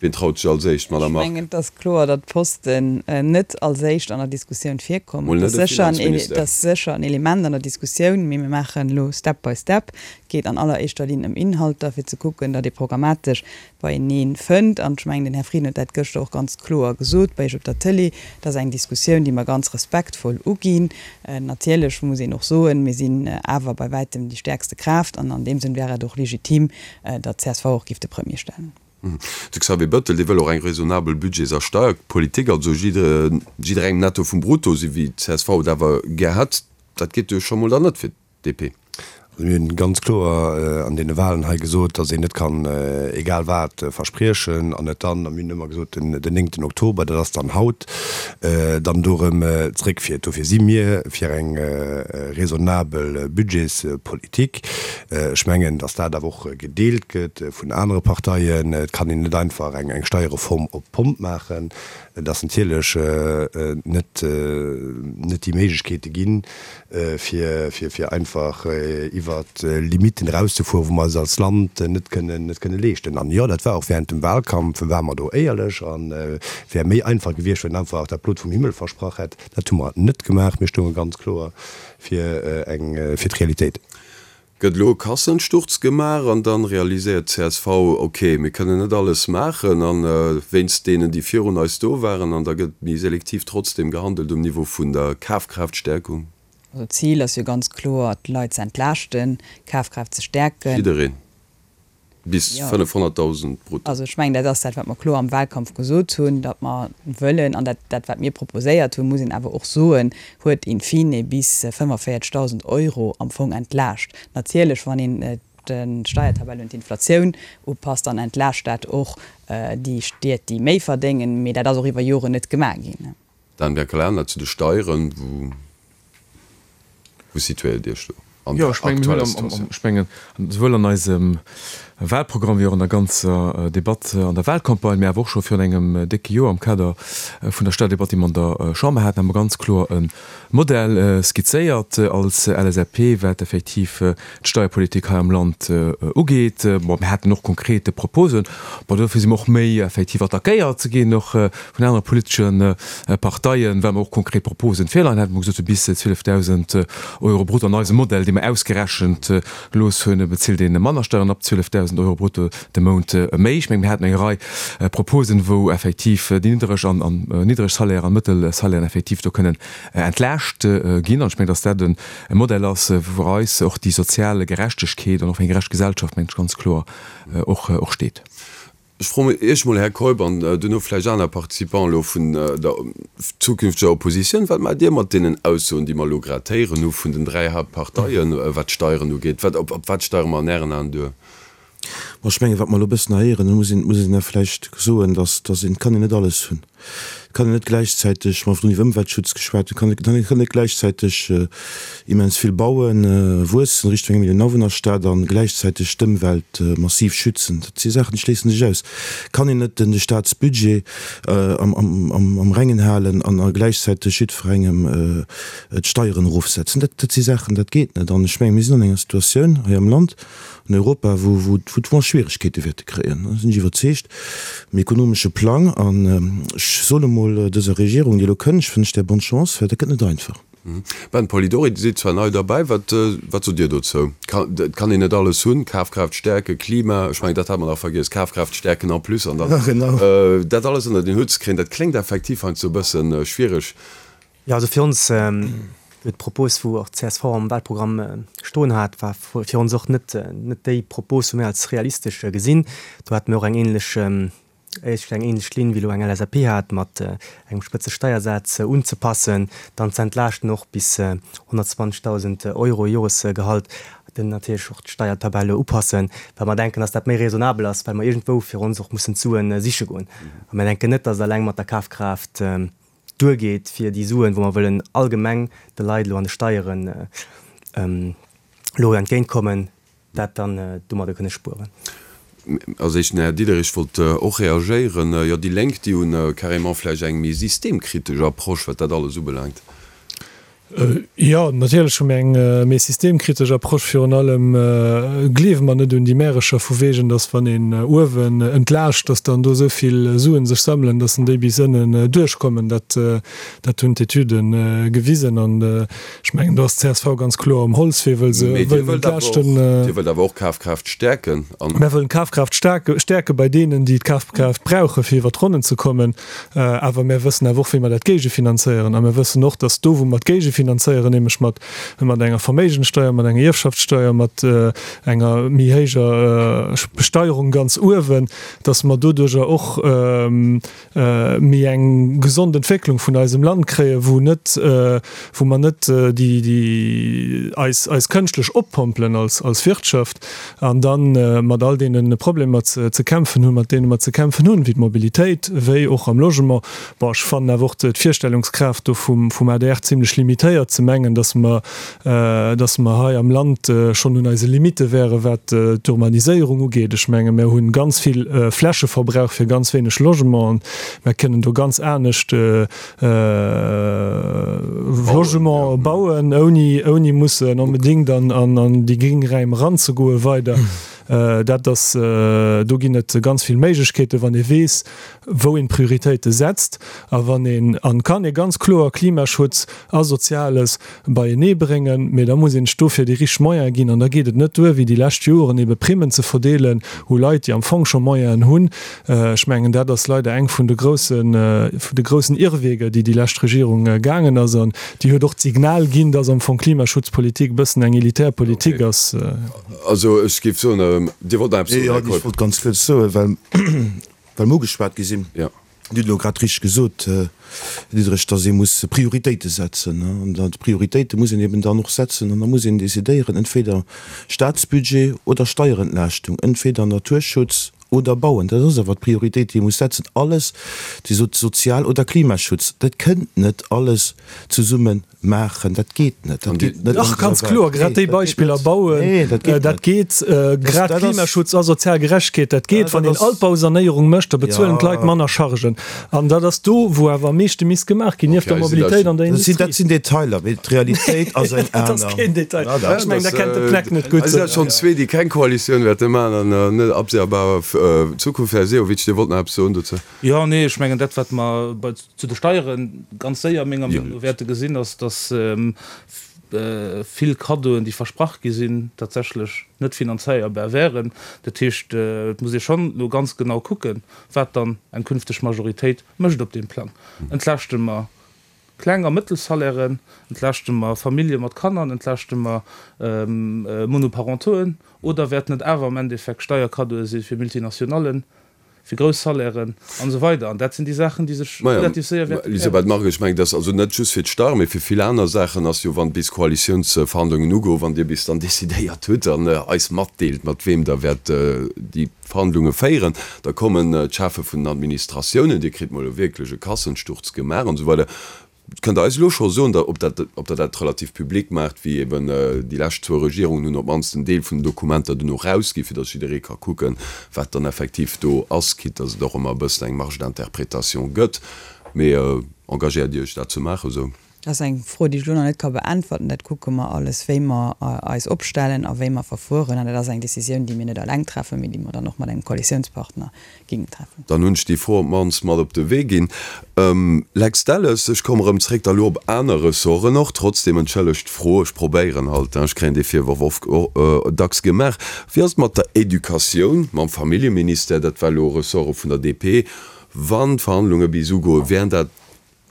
wien traut sech als éischt, Madame Ech Margue? mengen, et ass kloer, datt d'Posten net als éischt an der Diskussioun virkommen. Mol net Et e ass sécher en, et Finanzministère. ass sécher en Element an der Diskussioun, mee mir maachen elo step by step. Et geet an alleréischter Linn ëm Inhalter, fir ze kucken, datt ee programmatesch beieneen fënnt, an ech mengen, den Här Frieden huet dat gëschter och ganz kloer gesot bei Iech op der Tëlee, dat ass eng Diskussioun, déi mer ganz respektvoll uginn. Natierlech muss een och soen, mir sinn awer bei wäitem déi stäerkste Kraaft, an an deem Sënn wär et och legitim, datt csv och géif de Premier stellen. De Xavier Bettel, dee wëll och eng raisonnabel Budgets a Steierpolitik, also jidderengem Netto vum Brutto, esou wéi csv et awer gär hätt. Dat geet jo scho mol dann net fir DP. Also mir hunn ganz kloer an deene Wahlen hei gesot, datt een net kann egal wat verspriechen an et dann, a mir hunn ëmmer gesot den néngten Oktober, dat ass dann haut, dann do erëm zréckfiert. Dofir si mir fir eng raisonnabel Budgetspolitik. Ech mengen, datt dat awer och gedeelt gëtt vun anere Parteien. Et kann een net einfach eng Steierreform op d'Pomp maachen. Et ass natierlech net déi Méiglechkeete ginn, fir fir einfach iwwert Limiten erauszefueren, wou mer eis als Land net kënnen net kënne leeschten. An jo, dat war och während dem Wahlkampf, ware mer do éierlech an wär méi einfach gewiescht, wann een einfach dat Blot vum Himmel versprach hätt. Dat hu mer net gemaach. Mir stounge ganz kloer fir eng fir d'Realitéit. Gëtt elo e Kassensturz gemaach an dann realiséiert csv, ok, mir kënnen net alles maachen an wéinst deenen, déi virun eis do waren, an da gëtt méi selektiv trotzdem gehandelt um Niveau vun der Kafkraaftstärkung. Also d'Zil ass jo ganz kloer, d'Leit ze entlaaschten, d'Kafkraaft ze stäerken. Jiddereen. Bis 500.000 brutto. Also ech mengen, dat ass dat, wat mer kloer am Wahlkampf gesot hunn, datt mer wëllen, an dat, dat wat mir proposéiert hunn, muss een awer och soen, huet in fine bis 45.000 Euro am Fong entlaascht. Natierlech, wann een d'Steiertabell un d'Inflatioun upasst, dann entlaascht dat och déi Stied, déi méi verdéngen, mee dat ass och iwwer Joren net gemaach ginn. Dan Biancalana, Zu de Steieren, wou wou situéiert Dir Iech do an Jo, der ech mengen, mir hunn aktueller am, am, Situatioun? ech mengen, souwuel an eisem Wahlprogramm wéi och an der ganzer Debatt an der Wahlcampagne, mä awer och scho virun engem décke Joer am Kader vun der Steierdebatt, déi mer an der Chamber haten, hu mer ganz kloer e Modell skizzéiert als LSAP, wat effektiv d'Steierpolitik hei am Land ugeet. Bon, mir haten och konkrete Proposen. Bon, dofir si mer och méi effektiv attackéiert ginn, och vun anere politesche Parteien, well mer och konkret Proposen virleien haten. Mer hu gesot, sou bis 12.000 Euro brutto an eisem Modell, dee mer ausgerechent gelooss hunn, bezilt ee manner Steieren ab 12.000 Euro brutto de Mount méi. Ech mengen, mir haten eng Rei Proposen, wou effektiv déi niddereg an niddereg Salairen an mëttel Salairen effektiv do kënnen entlaascht ginn. An ech mengen, dass dat e Modell ass, wou fir eis och déi sozial Gerechtegkeet an och fir eng gerecht Gesellschaft, mengen ech, ganz kloer och steet. Ech froen Iech mol, Här Keup, an duerno vläicht aner Participants elo vun der zukünfteger Oppositioun, Wat maacht Dir mat deenen Aussoen, déi mer elo grad héieren hu vun den 3 Hauptparteien, wat d'Steieren ugeet? Wat, op wat steiere mer an Ären Aen duer? Bon, ech mengen, wat mer elo e bëssen héieren, do muss een, muss een da vläicht soen, dass, dass een, et kann een net alles hunn. Et kann een net gläichzäiteg, mer hunn iwwer Ëmweltschutz geschwat, et kann een net gläichzäiteg immens vill bauen, wuessen Richtung eng Millioun Awunnerstad an gläichzäiteg d'Ëmwelt massiv schützen. Dat si Saachen, déi schléissen sech aus. Et kann een net de Staatsbudget am Rengen halen an gläichzäiteg jiddwerengem d'Steieren erofsetzen. Dat si Saachen, dat geet net. An ech menge mir sinn an enger Situatioun hei am Land, an Europa, wou wou mer Schwieregkeete wäerte kréien, do sinn ech iwwerzeegt, um ekonomesche Plang. An ech soen emol dëser Regierung, déi elo kënnt, ech wënsch där bonne chance, well dat gëtt net einfach. Ben Polidori, Dir sidd zwar nei derbäi, wat wat sot Dir dozou? Et kann een net alles hunn, Kafkraaft stäerken, Klima, ech mengen dat hat mer nach vergiess, Kafkraaft stäerken en plus an dann dat alles ënnert een Hutt ze kréien, dat kléngt effektiv heiansdo e bësse schwiereg. Jo, also fir ons huet d'Propos, wou och csv am Wahlprogramm stoen hat, war fir ons och net net déi Propos, wou mir als realistesch gesinn. Do hate mir och eng ähnlech, éischter eng ähnlech Linn, wéi elo eng LSAP hat, mat engem Spëtzesteiersaz unzepassen, dann z'entlaaschten och bis 120.000 Euro Joresgehalt, dann natierlech och d'Steiertabelle upassen, well mer denken, dass dat méi raisonnabel ass, well mer iergendwou fir ons och mussen d'Suen siche goen. A mir denken net, dass et alleng mat der Kafkraaft duergeet, fir déi Suen, wou mer wëllen allgemeng de Leit elo an de Steieren elo entgéintkommen, dat dann domadder kënne spueren. Als éischten den Här Diderich wollt och reagéieren. Jo, déi Lénk, déi hu carrément vläicht eng méi systemkritesch Approche, wat dat alles ubelaangt. Jo, natierlech hu mir eng méi systemkritesch Approche. Virun allem gleewe mer net un déi Märecher vu wegen, dass wann een uewen entlaascht, dass dann do esou vill Suen sech sammelen, dass en déi bis ënnen duerchkommen. Dat, dat hunn d'Etüde gewisen. An ech mengen, do ass d'CSV ganz kloer um Holzwee, wëll se wëllen entlaaschten. Dir wëllt awer och Kafkraaft stäerken. Mir wëllen d'Kafkraaft stäerke bei deenen, déi d'Kafkraaft brauchen, fir iwwer d'Ronnen ze kommen. Awer mär wëssen awer och, wéi mer dat géigefinanzéieren. A mär wëssen och, datt do, wou mer et géigefinanzéieren, nämlech mat, mat enger Verméigenssteuer, mat enger Ierfschaftssteuer, mat enger méi héijer Besteierung ganz uewen, datt mer doduerjer och méi eng gesond Entwécklung vun eisem Land kréien, wou net, wou mer net déi, déi eis, eis kënschtlech oppompelen als, als Wirtschaft. An da mat all deene Problemer ze kämpfen hunn, mat deene mer ze kämpfen hunn, wéi d'Mobilitéit, wéi och am Logement. Bon, ech fannen awer och d'Virstellungskraaft do vum adr zimlech limitéiert, ze mengen, datt mer, datt mer hei am Land schonn un eise Limitte wären, wat d'Urbaniséierung ugeet. Ech menge mer hu ganz vill Flächeverbrauch fir ganz wéineg Logementen. Mer kënnen do ganz anescht Logement bauen, ouni, ouni mussen onbedéngt an, an, an déi gréng Räim eranzegoe weider. Dat ass, do ginn et ganz vill Méiglechkeeten, wann ee weess, wou een d'Prioritéite setzt a wann een, an kann ee ganz kloer Klimaschutz a Soziales beienee bréngen, mee da muss een sech dofir déi richteg Moyene ginn an da geet et net duer, wéi déi lescht Joren ebe Primmen ze verdeelen u Leit, déi am Fong scho Moyenen hunn. Ech mengen, dat ass leider eng vun de groussen, vun de groussen Irrweger, déi déi lescht Regierung gaangen ass an déi huet och d'Signal ginn, dass am Fong Klimaschutzpolitik e bëssen eng elitär Politik ass. Also ech géif soen, Dir wollt nach eppes soen, Här Keup. Jo, ech wollt ganz kuerz soen, well mer ugeschwat gi sinn. Dir hutt elo grad richteg gesot, Här Diderich, dass ee muss Prioritéite setzen. An d'Prioritéite muss een eben dann och setzen an da muss een decidéieren, entweder Staatsbudget oder Steierentlaaschtung, entweder Naturschutz oder Bauen. Dat ass awer d'Prioritéit, déi ee muss setzen. Alles, Dir sot Sozial oder Klimaschutz, dat kënnt net alles zesummen maachen, dat geet net. Dat geet net. Dach, ganz kloer, grad déi Beispiller bauen, dat geet. Grad Klimaschutz a sozial Gerechtegkeet, dat geet. Wann een Altbausanéierung mécht, da bezuelen d'Leit manner Chargen. An dat ass do, wou awer am meeschte misst gemaach ginn, nieft der Mobilitéit an der Industrie. Dat sinn Detailer, mee d'Realitéit ass eng aner. Dat ass keen Detail. Ech mengen, Der kennt de Plek net gutt. Et sinn schonn zwee, déi keng Koalitioun wäerte maachen an net absehbarer Zukunft. Här Sehovic, Dir wollt nach eppes soen dozou? Jo, nee, ech mengen, dat, wat mer bei zu de Steiere ganz séier menger Meenung no wäerte gesinn, ass, dass vill Kaddoen, déi versprach gi sinn, tatsächlech net finanzéierbar wären. Dat heescht, et muss ee schonn elo ganz genau kucken, wat dann eng künfteg Majoritéit mécht op deem Plang. Entlaaschte mer Kleng a Mëttelsalairen, entlaaschte mer Famillje mat Kanner, entlaaschte mer Monoparentoen oder wäerten et awer am Endeffekt Steierkaddoe si fir Multinationallen? Fir grouss Salairen an esou weider. An dat sinn déi Saachen, déi sech relativ séier wäerte klären. Elisabeth Margue, ech mengen, dass also net just fir d'Steier, mee fir vill aner Saachen ass jo, wann bis Koalitiounsverhandlungen ugoen, wann Dir bis dann decidéiert hutt an eis matdeelt, mat weem Der wäert déi Verhandlunge féieren, da kommen d'Cheffe vun den Administratiounen, Dir kritt mol wierklech e Kassensturz gemaach an esou weider. Kënnt Der eis elo scho soen, ob dat, ob Der dat relativ public maacht, wéi eben déi lescht zwou Regierungen hunn op d'mannst en Deel vun den Dokumenter duerno erausginn, fir datt jidderee ka kucken, wat dann effektiv do ass, quitte datt et och ëmmer e bëssen eng Marge d'interprétation gëtt. Mee engagéiert Dir Iech dat ze maachen esou? Dat ass eng Fro, déi ech elo nach net ka beäntwerten. Dat kucke mer alles, wéi mer eis opstellen a wéi mer verfueren. An dat ass eng Décisioun, déi mir net eleng treffen, mee déi mer dann och mat engem Koalitiounspartner géingen treffen. Dann hunn ech déi Fro op d'mannst mat op de Wee ginn. Lex Delles, ech komme rëm zréck da lo op aner Ressorten och. Trotzdem, entschëllegt d'Fro, ech probéieren halt, ech kréien dee Virworf oft dacks gemaach. Wéi ass et mat der Educatioun, mam Familljeministère? Dat war elo Ressorte vun der DP. Wann d'Verhandlunge bis ugoen, wären dat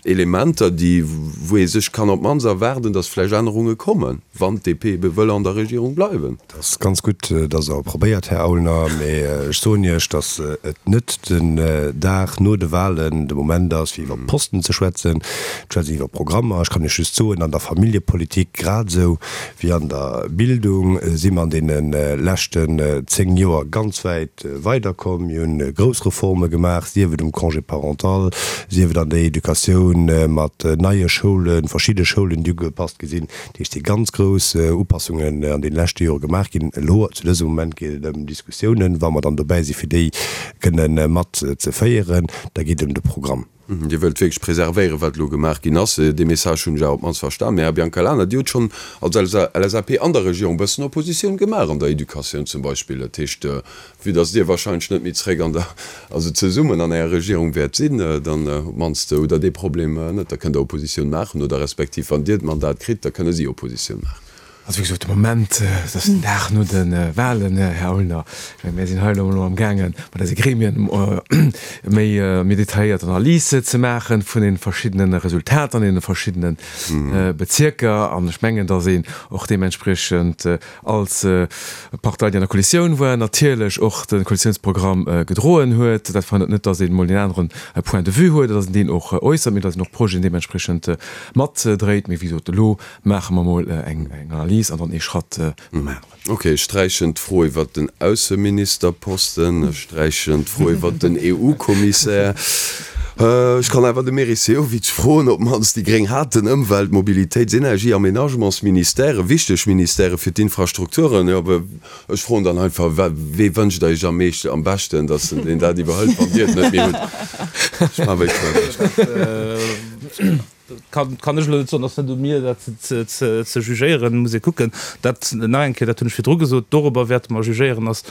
Elementer, déi, wou ee sech kann op d'mannst erwaarden, datt vläicht Ännerunge kommen, wann d'DP ebe wëll an der Regierung bleiwen. Dat ass ganz gutt, datt Der probéiert, Här Aulner, mee ech soen Iech, datt et net den Dag no de Wahlen de Moment ass, fir iwwer Posten ze schwätzen. Et schwätzt een iwwer Programmer. Ech kann Iech just soen, an der Familljepolitik grad esou wéi an der Bildung si mer an deene leschten 10 Joer ganz wäit weiderkomm. Mir hunn grouss Reforme gemaach, sief et um Congé parental, sief et an der Educatioun mat neie Schoulen, verschidde Schoulen, déi ugepasst gi sinn. Dat heescht, et si ganz grouss Upassungen an deene leschte Jore gemaach ginn. Elo zu dësem Moment geet et ëm Diskussiounen. Wa mer dann dobäi si fir déi kënne mat ze féieren, da geet et ëm de Programm. Dir wëllt wierklech preservéieren, wat elo gemaach ginn ass. Dee Message hunn ech awer op d'mannst verstan. Mä, Här Biancalana, Dir hutt schonn als LSAP an der Regierung e bëssen Oppositioun gemaach, an der Educatioun zum Beispill. Dat heescht, vue dass Dir wahrscheinlech net méi zréck an der, also zesummen an enger Regierung wäert sinn, dann op d'mannst hutt Der dee Problem net. Da kënnt Der Oppositioun maachen oder respektiv, wann Dir d'Mandat kritt, da kënne si Oppositioun maachen. Also wéi gesot, de Moment, et ass den Dag no de Wahlen, Här Aulner. Ech mengen, mir sinn hei elo emol amgaangen, mat eise Gremien méi, méi detailléiert Analyse ze maache vun deene verschiddene Resultater an deene verschiddene Bezierker. An ech mengen, datt een och deementspriechend als Partei, déi an der Koalitioun war, natierlech och de Koalitiounsprogramm gedroen huet. Dat verhënnert net, datt een emol deen aneren Point de vue huet, datt een deen och äussert, mee datt een och Projeten deementspriechend matdréit. Mee wéi gesot, elo Maache mer mol eng Analys an dann ee Schratt nom aneren. Ok, ech sträichen d'Fro iwwert den Ausseministerposten, ech sträichen d'Fro iwwert den EU-Kommissär. Ech kann awer de Meris Sehovic froen, op d'mannst déi Gréng haten Ëmwelt-, Mobilitéits-, Energie-, Aménagementsministèrë, wichteg Ministèrë fir d'Infrastrukturen. Jo, ech froen dann einfach, Wee wënscht Der Iech am meeschten, am beschten, datt en dat iwwerhëlt, wann Dir et net méi hutt? Ech maache wéi ech wëll. Kann, kann ech elo net soen, ass net u mir dat ze, ze jugéieren, muss ee kucken. Dat nach eng Kéier, dat hunn ech virdru gesot, dorobber wäerte mer jugéieren, ass,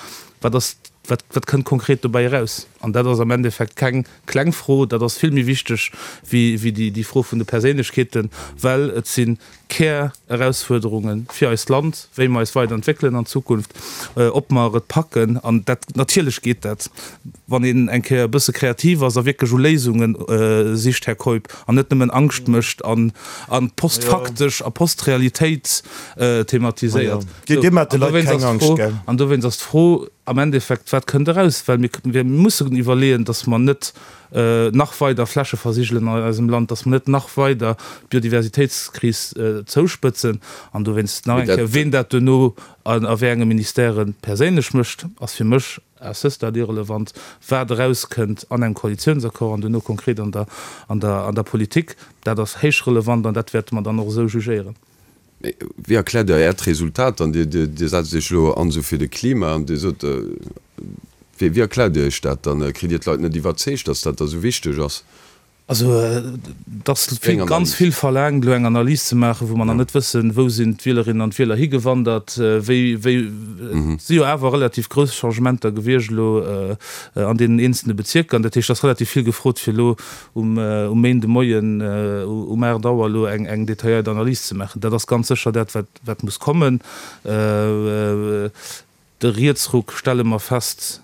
wat ass, wat, wat kënnt konkret dobäi eraus? An dat ass am Endeffekt keng kleng Fro, dat ass vill méi wichteg wéi, wéi déi, déi Fro vun de Perséinlechkeeten, well et si Kär-Erausfuerderunge fir eist Land, wéi mer eis weider entwéckelen an Zukunft, ob mer et packen, an dat, natierlech geet dat, wann een eng Kéier e bësse kreativ ass a wierklech u Léisunge sicht, Här Keup, an net nëmmen Angscht mécht an postfaktesch a Postrealitéit thematiséiert. An dowéinst ass d'Fro am Endeffekt, Wat kënnt eraus? Well mir mussen iwwerleeën, datt mer net nach weider Fläche versigelen an eisem Land, dass mer net nach weider d'Biodiversitéitskris zouspëtzen. An dowéinst nach eng Kéier, Ween dat duerno a wéi enge Ministèrë perséinlech mécht, ass fir mech à ce stade irrelevant. Wat erauskënnt an engem Koalitiounsaccord an duerno konkret an der, an der, an der Politik, dat ass héich relevant an dat wäerte mer dann och esou jugéieren. Mee wéi erkläert Der Äert Resultat dann? Dir, Dir setzt Iech elo an esou fir de Klima an Dir sot, wéi, wéi erkläert Dir Iech dat dann? Kritt Dir d'Leit net iwwerzeegt, datt dat da esou wichteg ass? Also et ass vill, ganz vill verlaangt, elo eng Analys ze maachen, wou mer nach net wëssen, wou sinn d'Wielerinnen an d'Wieler higewandert, wéi, wéi, et si jo awer relativ grouss Changementer gewiescht elo an deenen eenzelne Bezierker. An dat heescht, et ass relativ vill gefrot, fir elo um Méinde Moien um 8 Auer elo eng detailléiert Analys ze maachen. Dat ass ganz sécher dat, wat muss kommen. De Rietsruck, stelle mer fest,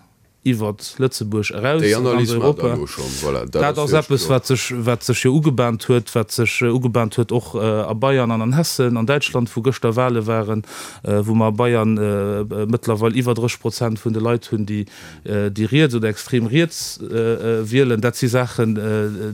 Iwwert Lëtzebuerg eraus an ganz Europa. Dat ass eppes, wat sech, wat sech jo ugebahnt huet, wat sech ugebahnt huet och a Bayern an an Hessen, an Däitschland, wou gëschter Wahle waren, wou mer a Bayern mëttlerweil iwwer 30 Prozent vun de Leit hunn, déi, déi riets oder extrem riets wielen. Dat si Saachen,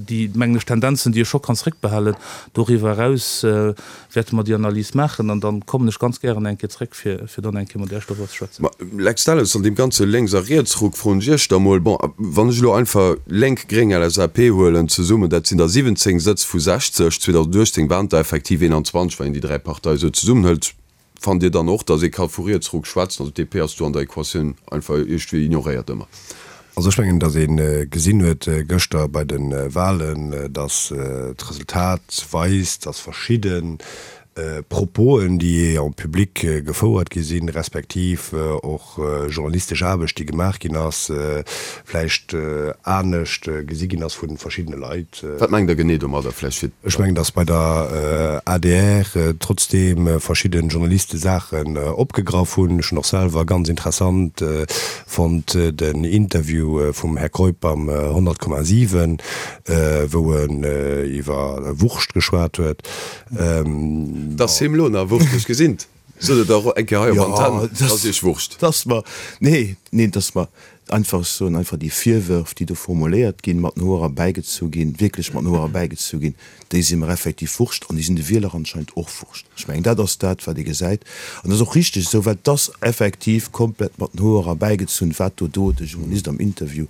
déi, mengen ech, Tendenzen, déi ee scho kann zréckbehalen. Doriwwer eraus wäerte mer déi Analys maachen an dann kommen ech ganz gären eng Kéier zréck, fir fir dann eng Kéier mat Iech doriwwer ze schwätzen. Ma Lex Delles, an deem ganze Lénks a Rietsruck froen ech Iech da mol, bon, wann ech elo einfach Lénk, Gréng, LSAP huelen zesummen, dat sinn der 17 Sëtz vu 60, 2018 waren et der effektiv 21, wann een déi dräi Parteie sou zesummen hëlt. Fannt Dir dann och, datt ee ka vu Rietsruck schwätzen? Also d'DP ass do an der Equatioun einfach iergendwéi ignoréiert ëmmer. Also ech mengen, datt ee gesinn huet gëschter bei de Wahlen, datt d'Resultat weist, datt verschidde Proposen, déi en public gefouert gi sinn, respektiv och journalistesch Aarbecht, déi gemaach ginn ass, vläicht anescht gesi ginn ass vu verschiddene Leit. Wat mengt Der genee domadder? Vläicht fir. Ech mengen, datt bei der adr trotzdeem verschidde Journaliste Saachen opgegraff hunn. Ech hunn och selwer ganz interessant fonnt den Interview vum Här Keup beim 100,7, wou en iwwer Wurscht geschwat huet. T'ass him lo nach Wurscht, ech gesinn 't. Sot et och eng Kéier hei op Antenn, 't ass iech Wurscht. T'ass mer, nee, nee, t'ass mer einfach, ech soen einfach, déi Virwërf, déi do formuléiert ginn, mat den Hoer erbäigezu ginn, wierklech mat den Hoer erbäigezu ginn, déi si mer effektiv Wurscht an déi sinn de Wieler anscheinend och Wurscht. Ech mengen, dat ass dat, wat ee gesäit. An dat ass och richteg esou, well et ass effektiv komplett mat den Hoer erbäigezunn, wat do do de Journalist am Interview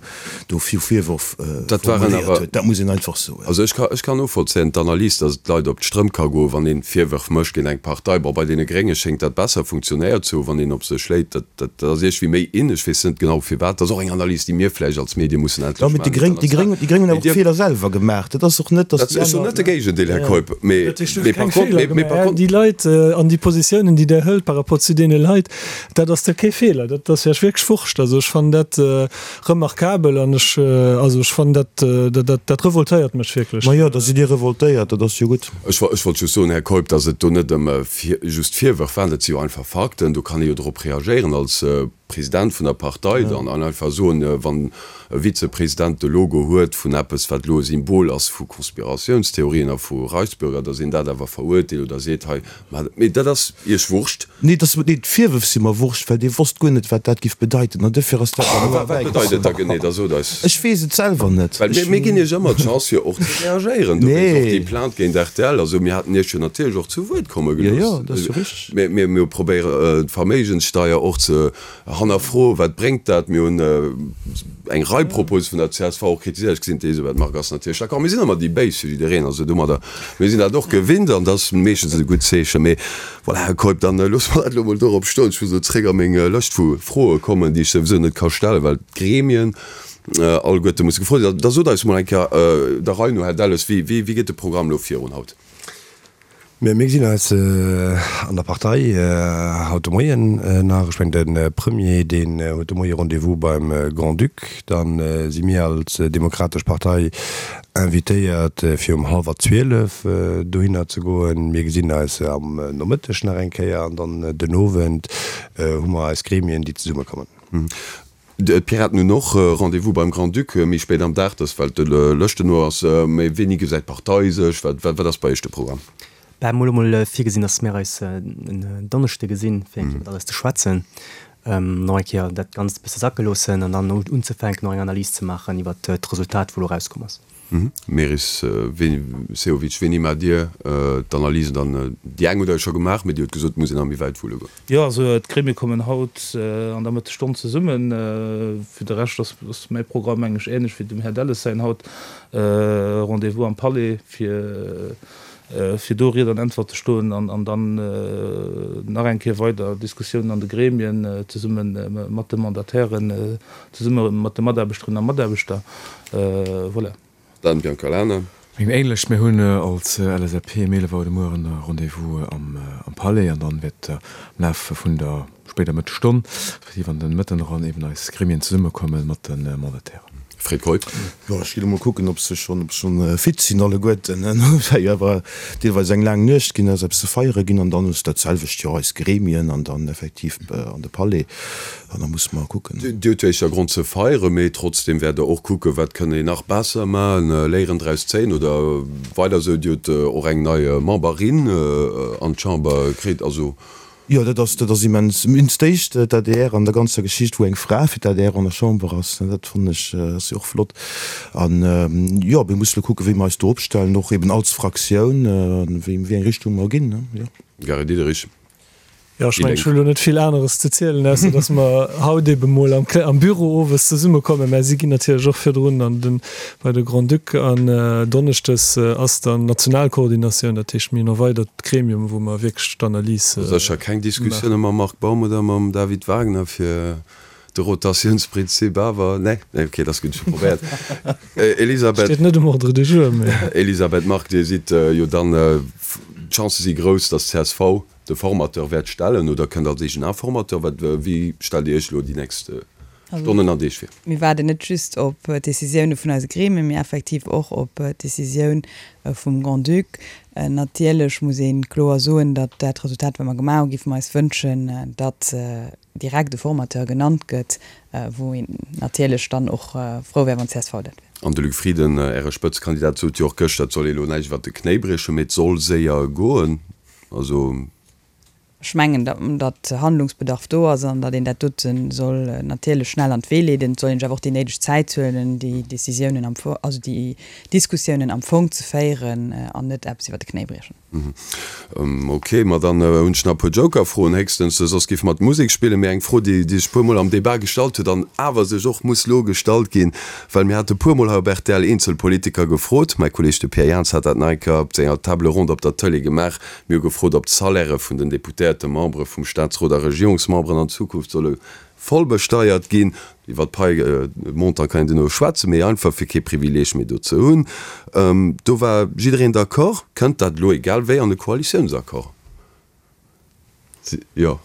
do fir Virwërf formuléiert huet. Dat muss een einfach soen. Also ech ka, ech kann novollzéien d'Analys, datt et d'Leit op d'Strëmp ka goen, wann ee Virwërf mécht géint eng Partei. Bon, bei deene Grénge schéngt dat besser funktionéiert ze hunn, wann een op se schléit. Dat, dat ass iergendwéi méi in. Ech weess net genau firwat. Dat ass och eng Analys, déi mir vläicht als Medie mussen endlech maachen. Déi Gréng, déi Gréng, déi Gréng hunn awer och Feeler selwer gemaach. Dat ass och net, datt déi aner. Ech soen net de Géigendeel, Här Keup, mee, mee par contre, mee, mee par contre. Déi Leit an déi Positiounen, déi Der hëlt par rapport zu deene Leit, dat ass da kee Feeler. Dat ass Iech wierklech Wurscht. Also ech fannen dat remarkabel an ech, also ech fannen dat, dat, dat revoltéiert mech wierklech. Ma jo, da sidd Dir revoltéiert, dat ass jo gutt. Ech ech wollt just soen, Här Keup, datt et do net ëm just Virwërf waren, dat si jo einfach Fakten, do kann ee jo drop reagéieren als President vun der Partei dann an einfach soen, wann e Vizepresident de Logo huet vun eppes, wat elo e Symbol ass vu Konspiratiounstheorien a vu Reichsbürger, datt een dat awer verurteelt oder seet, hei, Mee dat ass Iech Wurscht. Nee, dass, nee, d'Virwërf si mer Wurscht, well dee wosst guer net, wat dat giff bedeiten. An duerfir ass dat dann elo Wat bedeit et da genee? Da sot eis. Ech weess et selwer net. Well mir, mir ginn Iech ëmmer d'Chance, fir och ze reagéieren. Dowéinst och déi Plainte géint rtl. Also mir haten Iech jo natierlech och zu Wuert komme gelooss. Jo, jo, dat ass jo richteg. Mir, mir, mir probéieren d'Verméigenssteier och ze hannerfroen. Wat bréngt dat? Mir hunn eng Rei Propose vun der csv och kritiséiert. Ech gesinn, d'Elisabeth Margue ass natierlech d'accord. Mir sinn ëmmer déi Béis fir jiddereen. Also domadder, mir sinn dat och gewinnt an dat ass meeschtens e gutt Zeechen. Mee voilà, Här Keup, dann loosse mer dat elo emol dorop stoen. Ech muss elo zréck a meng Lëscht vu Froe kommen, déi ech souwisou net ka stellen, well d'Gremien alleguerte musse gefrot sinn. Da sot eis emol eng Kéier der Rei no, Här Delles, wéi geet de Programm elo virun haut? Mir gesinn eis an der Partei haut de Moien nach. Ech mengen, de Premier, deen huet de Moie Rendez-vous beim Grand-Duc. Da si mir als Demokratesch Partei invitéiert, fir um hallwer 12 dohinner ze goen. Mir gesinn eis am Nomëtteg nach eng Kéier an dann den Owend hu mer eis Gremien, déi zesummekommen. D'Piraten hunn och Rendez-vous beim Grand-Duc méi spéit am Dag, dat well de Lëschten no ass. Mee wéini gesäit d'Partei sech? Wat ass bei Iech de Programm? Bah, mir hu mol virgesinn, datt mir eis en Donneschde gesinn, fir eng Kéier iwwer alles ze schwätzen, nach eng Kéier dat Ganzt e bësse sacke loossen an dann unzefänken, och eng Analys ze maachen iwwer d'Resultat, wou elo erauskomm ass. Meris Sehovic, wéini maacht Dir d'Analysen dann? Déi eng hutt Der jo scho gemaach, mee Dir hutt gesot, et muss een nach méi wäit wulle goen. Jo, also d'Gremie kommen haut an der Mëttesstonn zesummen. Fir de Rescht ass mäi Programm mengen ech ähnlech wéi dem Här Delles säin haut. Rendez-vous am Palais fir fir do Ried an Äntwert ze stoen an dann nach eng Kéier weider Diskussiounen an de Gremien zesumme mat de Mandatairen, zesumme mat de Mataarbechterinnen a Mataarbechter. Voilà. Dan Biancalana. Meng ähnlech, mir hunn als LSAP um 11 Auer de Mueren e Rendez-vous am Palais an dann wäert am Laf vun der spéider Mëttesstonn, respektiv an den Mëtten eran, eben eis Gremien zesummekomme mat de Mandatairen. Fred Keup. Jo, ech gi lo mol kucken, ob se schonn, ob se schonn fit sinn alleguerten. Et war jo awer deelweis eng laang Nuecht ginn, ass eppes ze feiere ginn an dann ass dat selwecht jo eis Gremien an dann effektiv an de Palais an da musse mer kucken. Dir hutt jo éischter Grond ze feieren, mee trotzdem wäert Der och kucken, wat kënne een nach besser maachen, Léieren draus zéien oder weider esou. Dir hutt och eng nei Memberin an d'Chamber kritt, also. Jo, dat ass, dat ass immens. Immens d'éischt d'ADR an der ganzer Geschicht, wou eng Fra fir d'ADR an der Chamber ass, dat fannen ech, ass jo och flott. An, jo, mir musse lo kucken, wéi mer eis do opstellen, och eben als Fraktioun, wéi, wéi eng Richtung mer ginn, jo. Gary Diderich, Jo, ech mengen, ech hu lo net vill aneres ze zielen, ausser datt mer haut ebe mol am, am Büro owes zesummekommen. Mä si ginn natierlech och virdrun an den, bei de Grand-Duc. An donneschdes ass dann Nationalkoordinatioun, dat heescht, mir hunn erweidert d'Gremium, wou mer wierklech d'Analys maachen. Sécher keng Diskussioune mam Marc Baum oder mam David Wagner fir de Rotatiounsprinzip awer? Nee? Nee, okay, dat ass gutt, ech hu probéiert. Elisabeth. Steet net um Ordre du jour, mee. Elisabeth Margue, Dir sidd jo dann, d'Chancë si grouss, datt csv de Formateur wäert stellen oder kënnt als eegen Informateur. Wat, wéi stellt Dir Iech elo déi nächst Stonnen an Deeg vir? Mir waarden net just op d'Decisioune vun eise Gremien, mee effektiv och op d'Decisioun vum Grand-Duc. Natierlech muss ee kloer soen, datt dat Resultat, wat mer gemaach hunn, géife mer eis wënschen, datt direkt e Formateur genannt gëtt, wou een natierlech dann och frou wär, wann csv dat wär. An de Luc Frieden, Äre Spëtzekandidat, sot jo och gëschter, et soll ee elo näischt iwwert de Knéi briechen, mee et soll séier goen. Also. Ech mengen, datt Handlungsbedarf do ass an datt een dat dote soll natierlech schnell an d'Wee leeden. Et soll een sech awer och déi néideg Zäit huelen, déi Décisiounen am Fong, also déi Diskussiounen am Fong ze féieren an net eppes iwwer de Knéi briechen. Ok, ma dann hunn ech nach e puer Joker-Froen héchstens, soss géife mer d'Musek spillen. Mee eng Fro, déi sech e puermol am Debat gestallt huet an awer sech och muss lo gestallt ginn, well mir hate puermol hei op rtl eenzel Politiker gefrot, mäi Kolleeg de Pierre Jans hat dat nach eng Kéier op senger Table ronde op der Tëlee gemaach, Mir hu gefrot, ob d'Salairë vun den Deputéierten, Membere vum Staatsrot a Regierungsmemberen an Zukunft solle voll besteiert ginn. Iwwer d'Pai-Montant kann een duerno schwätzen, mee einfach fir kee Privileeg méi do ze hunn. Do war jiddereen d'accord. Kënnt dat elo egal wéi an e Koalitiounsaccord? Jo.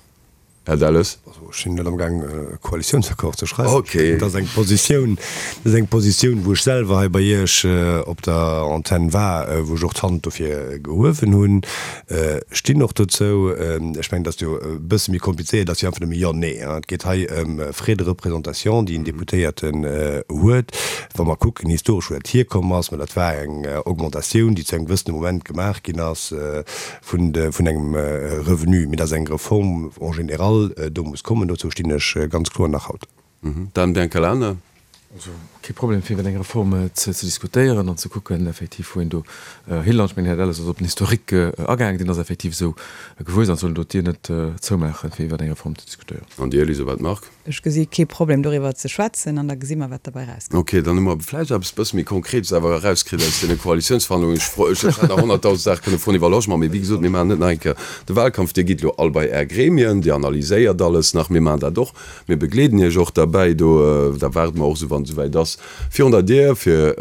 Här Delles. Also ech sinn net amgaang e Koalitiounsaccord ze schreiwen. Okay. Dat ass eng Positioun, dat ass eng Positioun, wou ech selwer hei bei Iech op der Antenn war, wou ech och d'Hand dofir gehuewen hunn. Ech stinn och dozou. Ech mengen, dat ass jo e bësse méi komplizéiert, dat ass jo einfach nëmme Jo, Nee. Et geet hei ëm Frais de représentation, déi en Deputéierten huet. Wa mer kucken historesch, wou dat hierkomm ass, mä dat war eng Augmentatioun, déi zu engem gewëssene Moment gemaach ginn ass, vun engem Revenu, mee dass eng Reform en général do muss kommen, dozou stinn ech ganz kloer nach haut. Dan Biancalana. Also kee Problem fir iwwer eng Reform ze diskutéieren an ze kucken effektiv wou een do hilant. Ech mengen, den Här Delles ass op den Historique agaangen, deen ass effektiv esou gewuess an et soll een do d'Dier net zoumaachen fir iwwer eng Reform ze diskutéieren. An Dir, Elisabeth Margue? Ech gesi kee Problem doriwwer ze schwätzen an da gesi mer wat derbäi erauskënnt. Ok, dann hu mer vläicht eppes bësse méi Konkretes awer erauskritt aus deene Koalitiounsverhandlungen. Ech fro, ech hätt nach 100.000 Saache kënne froen iwwer Logement, mee wéi gesot, mir maachen net nach eng Kéier de Wahlkampf. Dir gitt elo all bei Är Gremien, Dir analyséiert alles nach, mir maachen dat och, mir begleeden Iech och derbäi do. Da waarde mer och esou, wann et esouwäit ass, virun der Dier, fir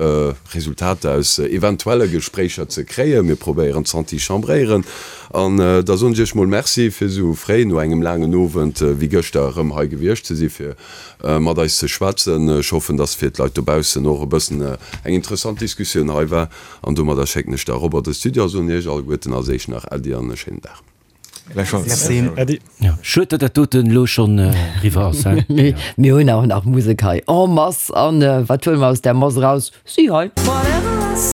Resultater aus eventuelle Gespréicher ze kréien. Mir probéieren z'antichambréieren. An da soen ech Iech mol Merci, fir esou fréi no engem laangen Owend wéi gëschter erëm hei gewiescht ze si fir mat eis ze schwätzen. Ech hoffen, dass fir d'Leit dobaussen och e bëssen eng interessant Diskussioun hei war. An domadder schécken ech da erop an de Studio a soen Iech alleguerten als éischt nach Äddi an e schéinen Dag. Gläichfalls. Äddi. Schued, datt dat doten elo schonn eriwwer ass, he? Mee mir hunn awer nach Musek hei en masse. An wat huele mer aus där Mass eraus? Si hei.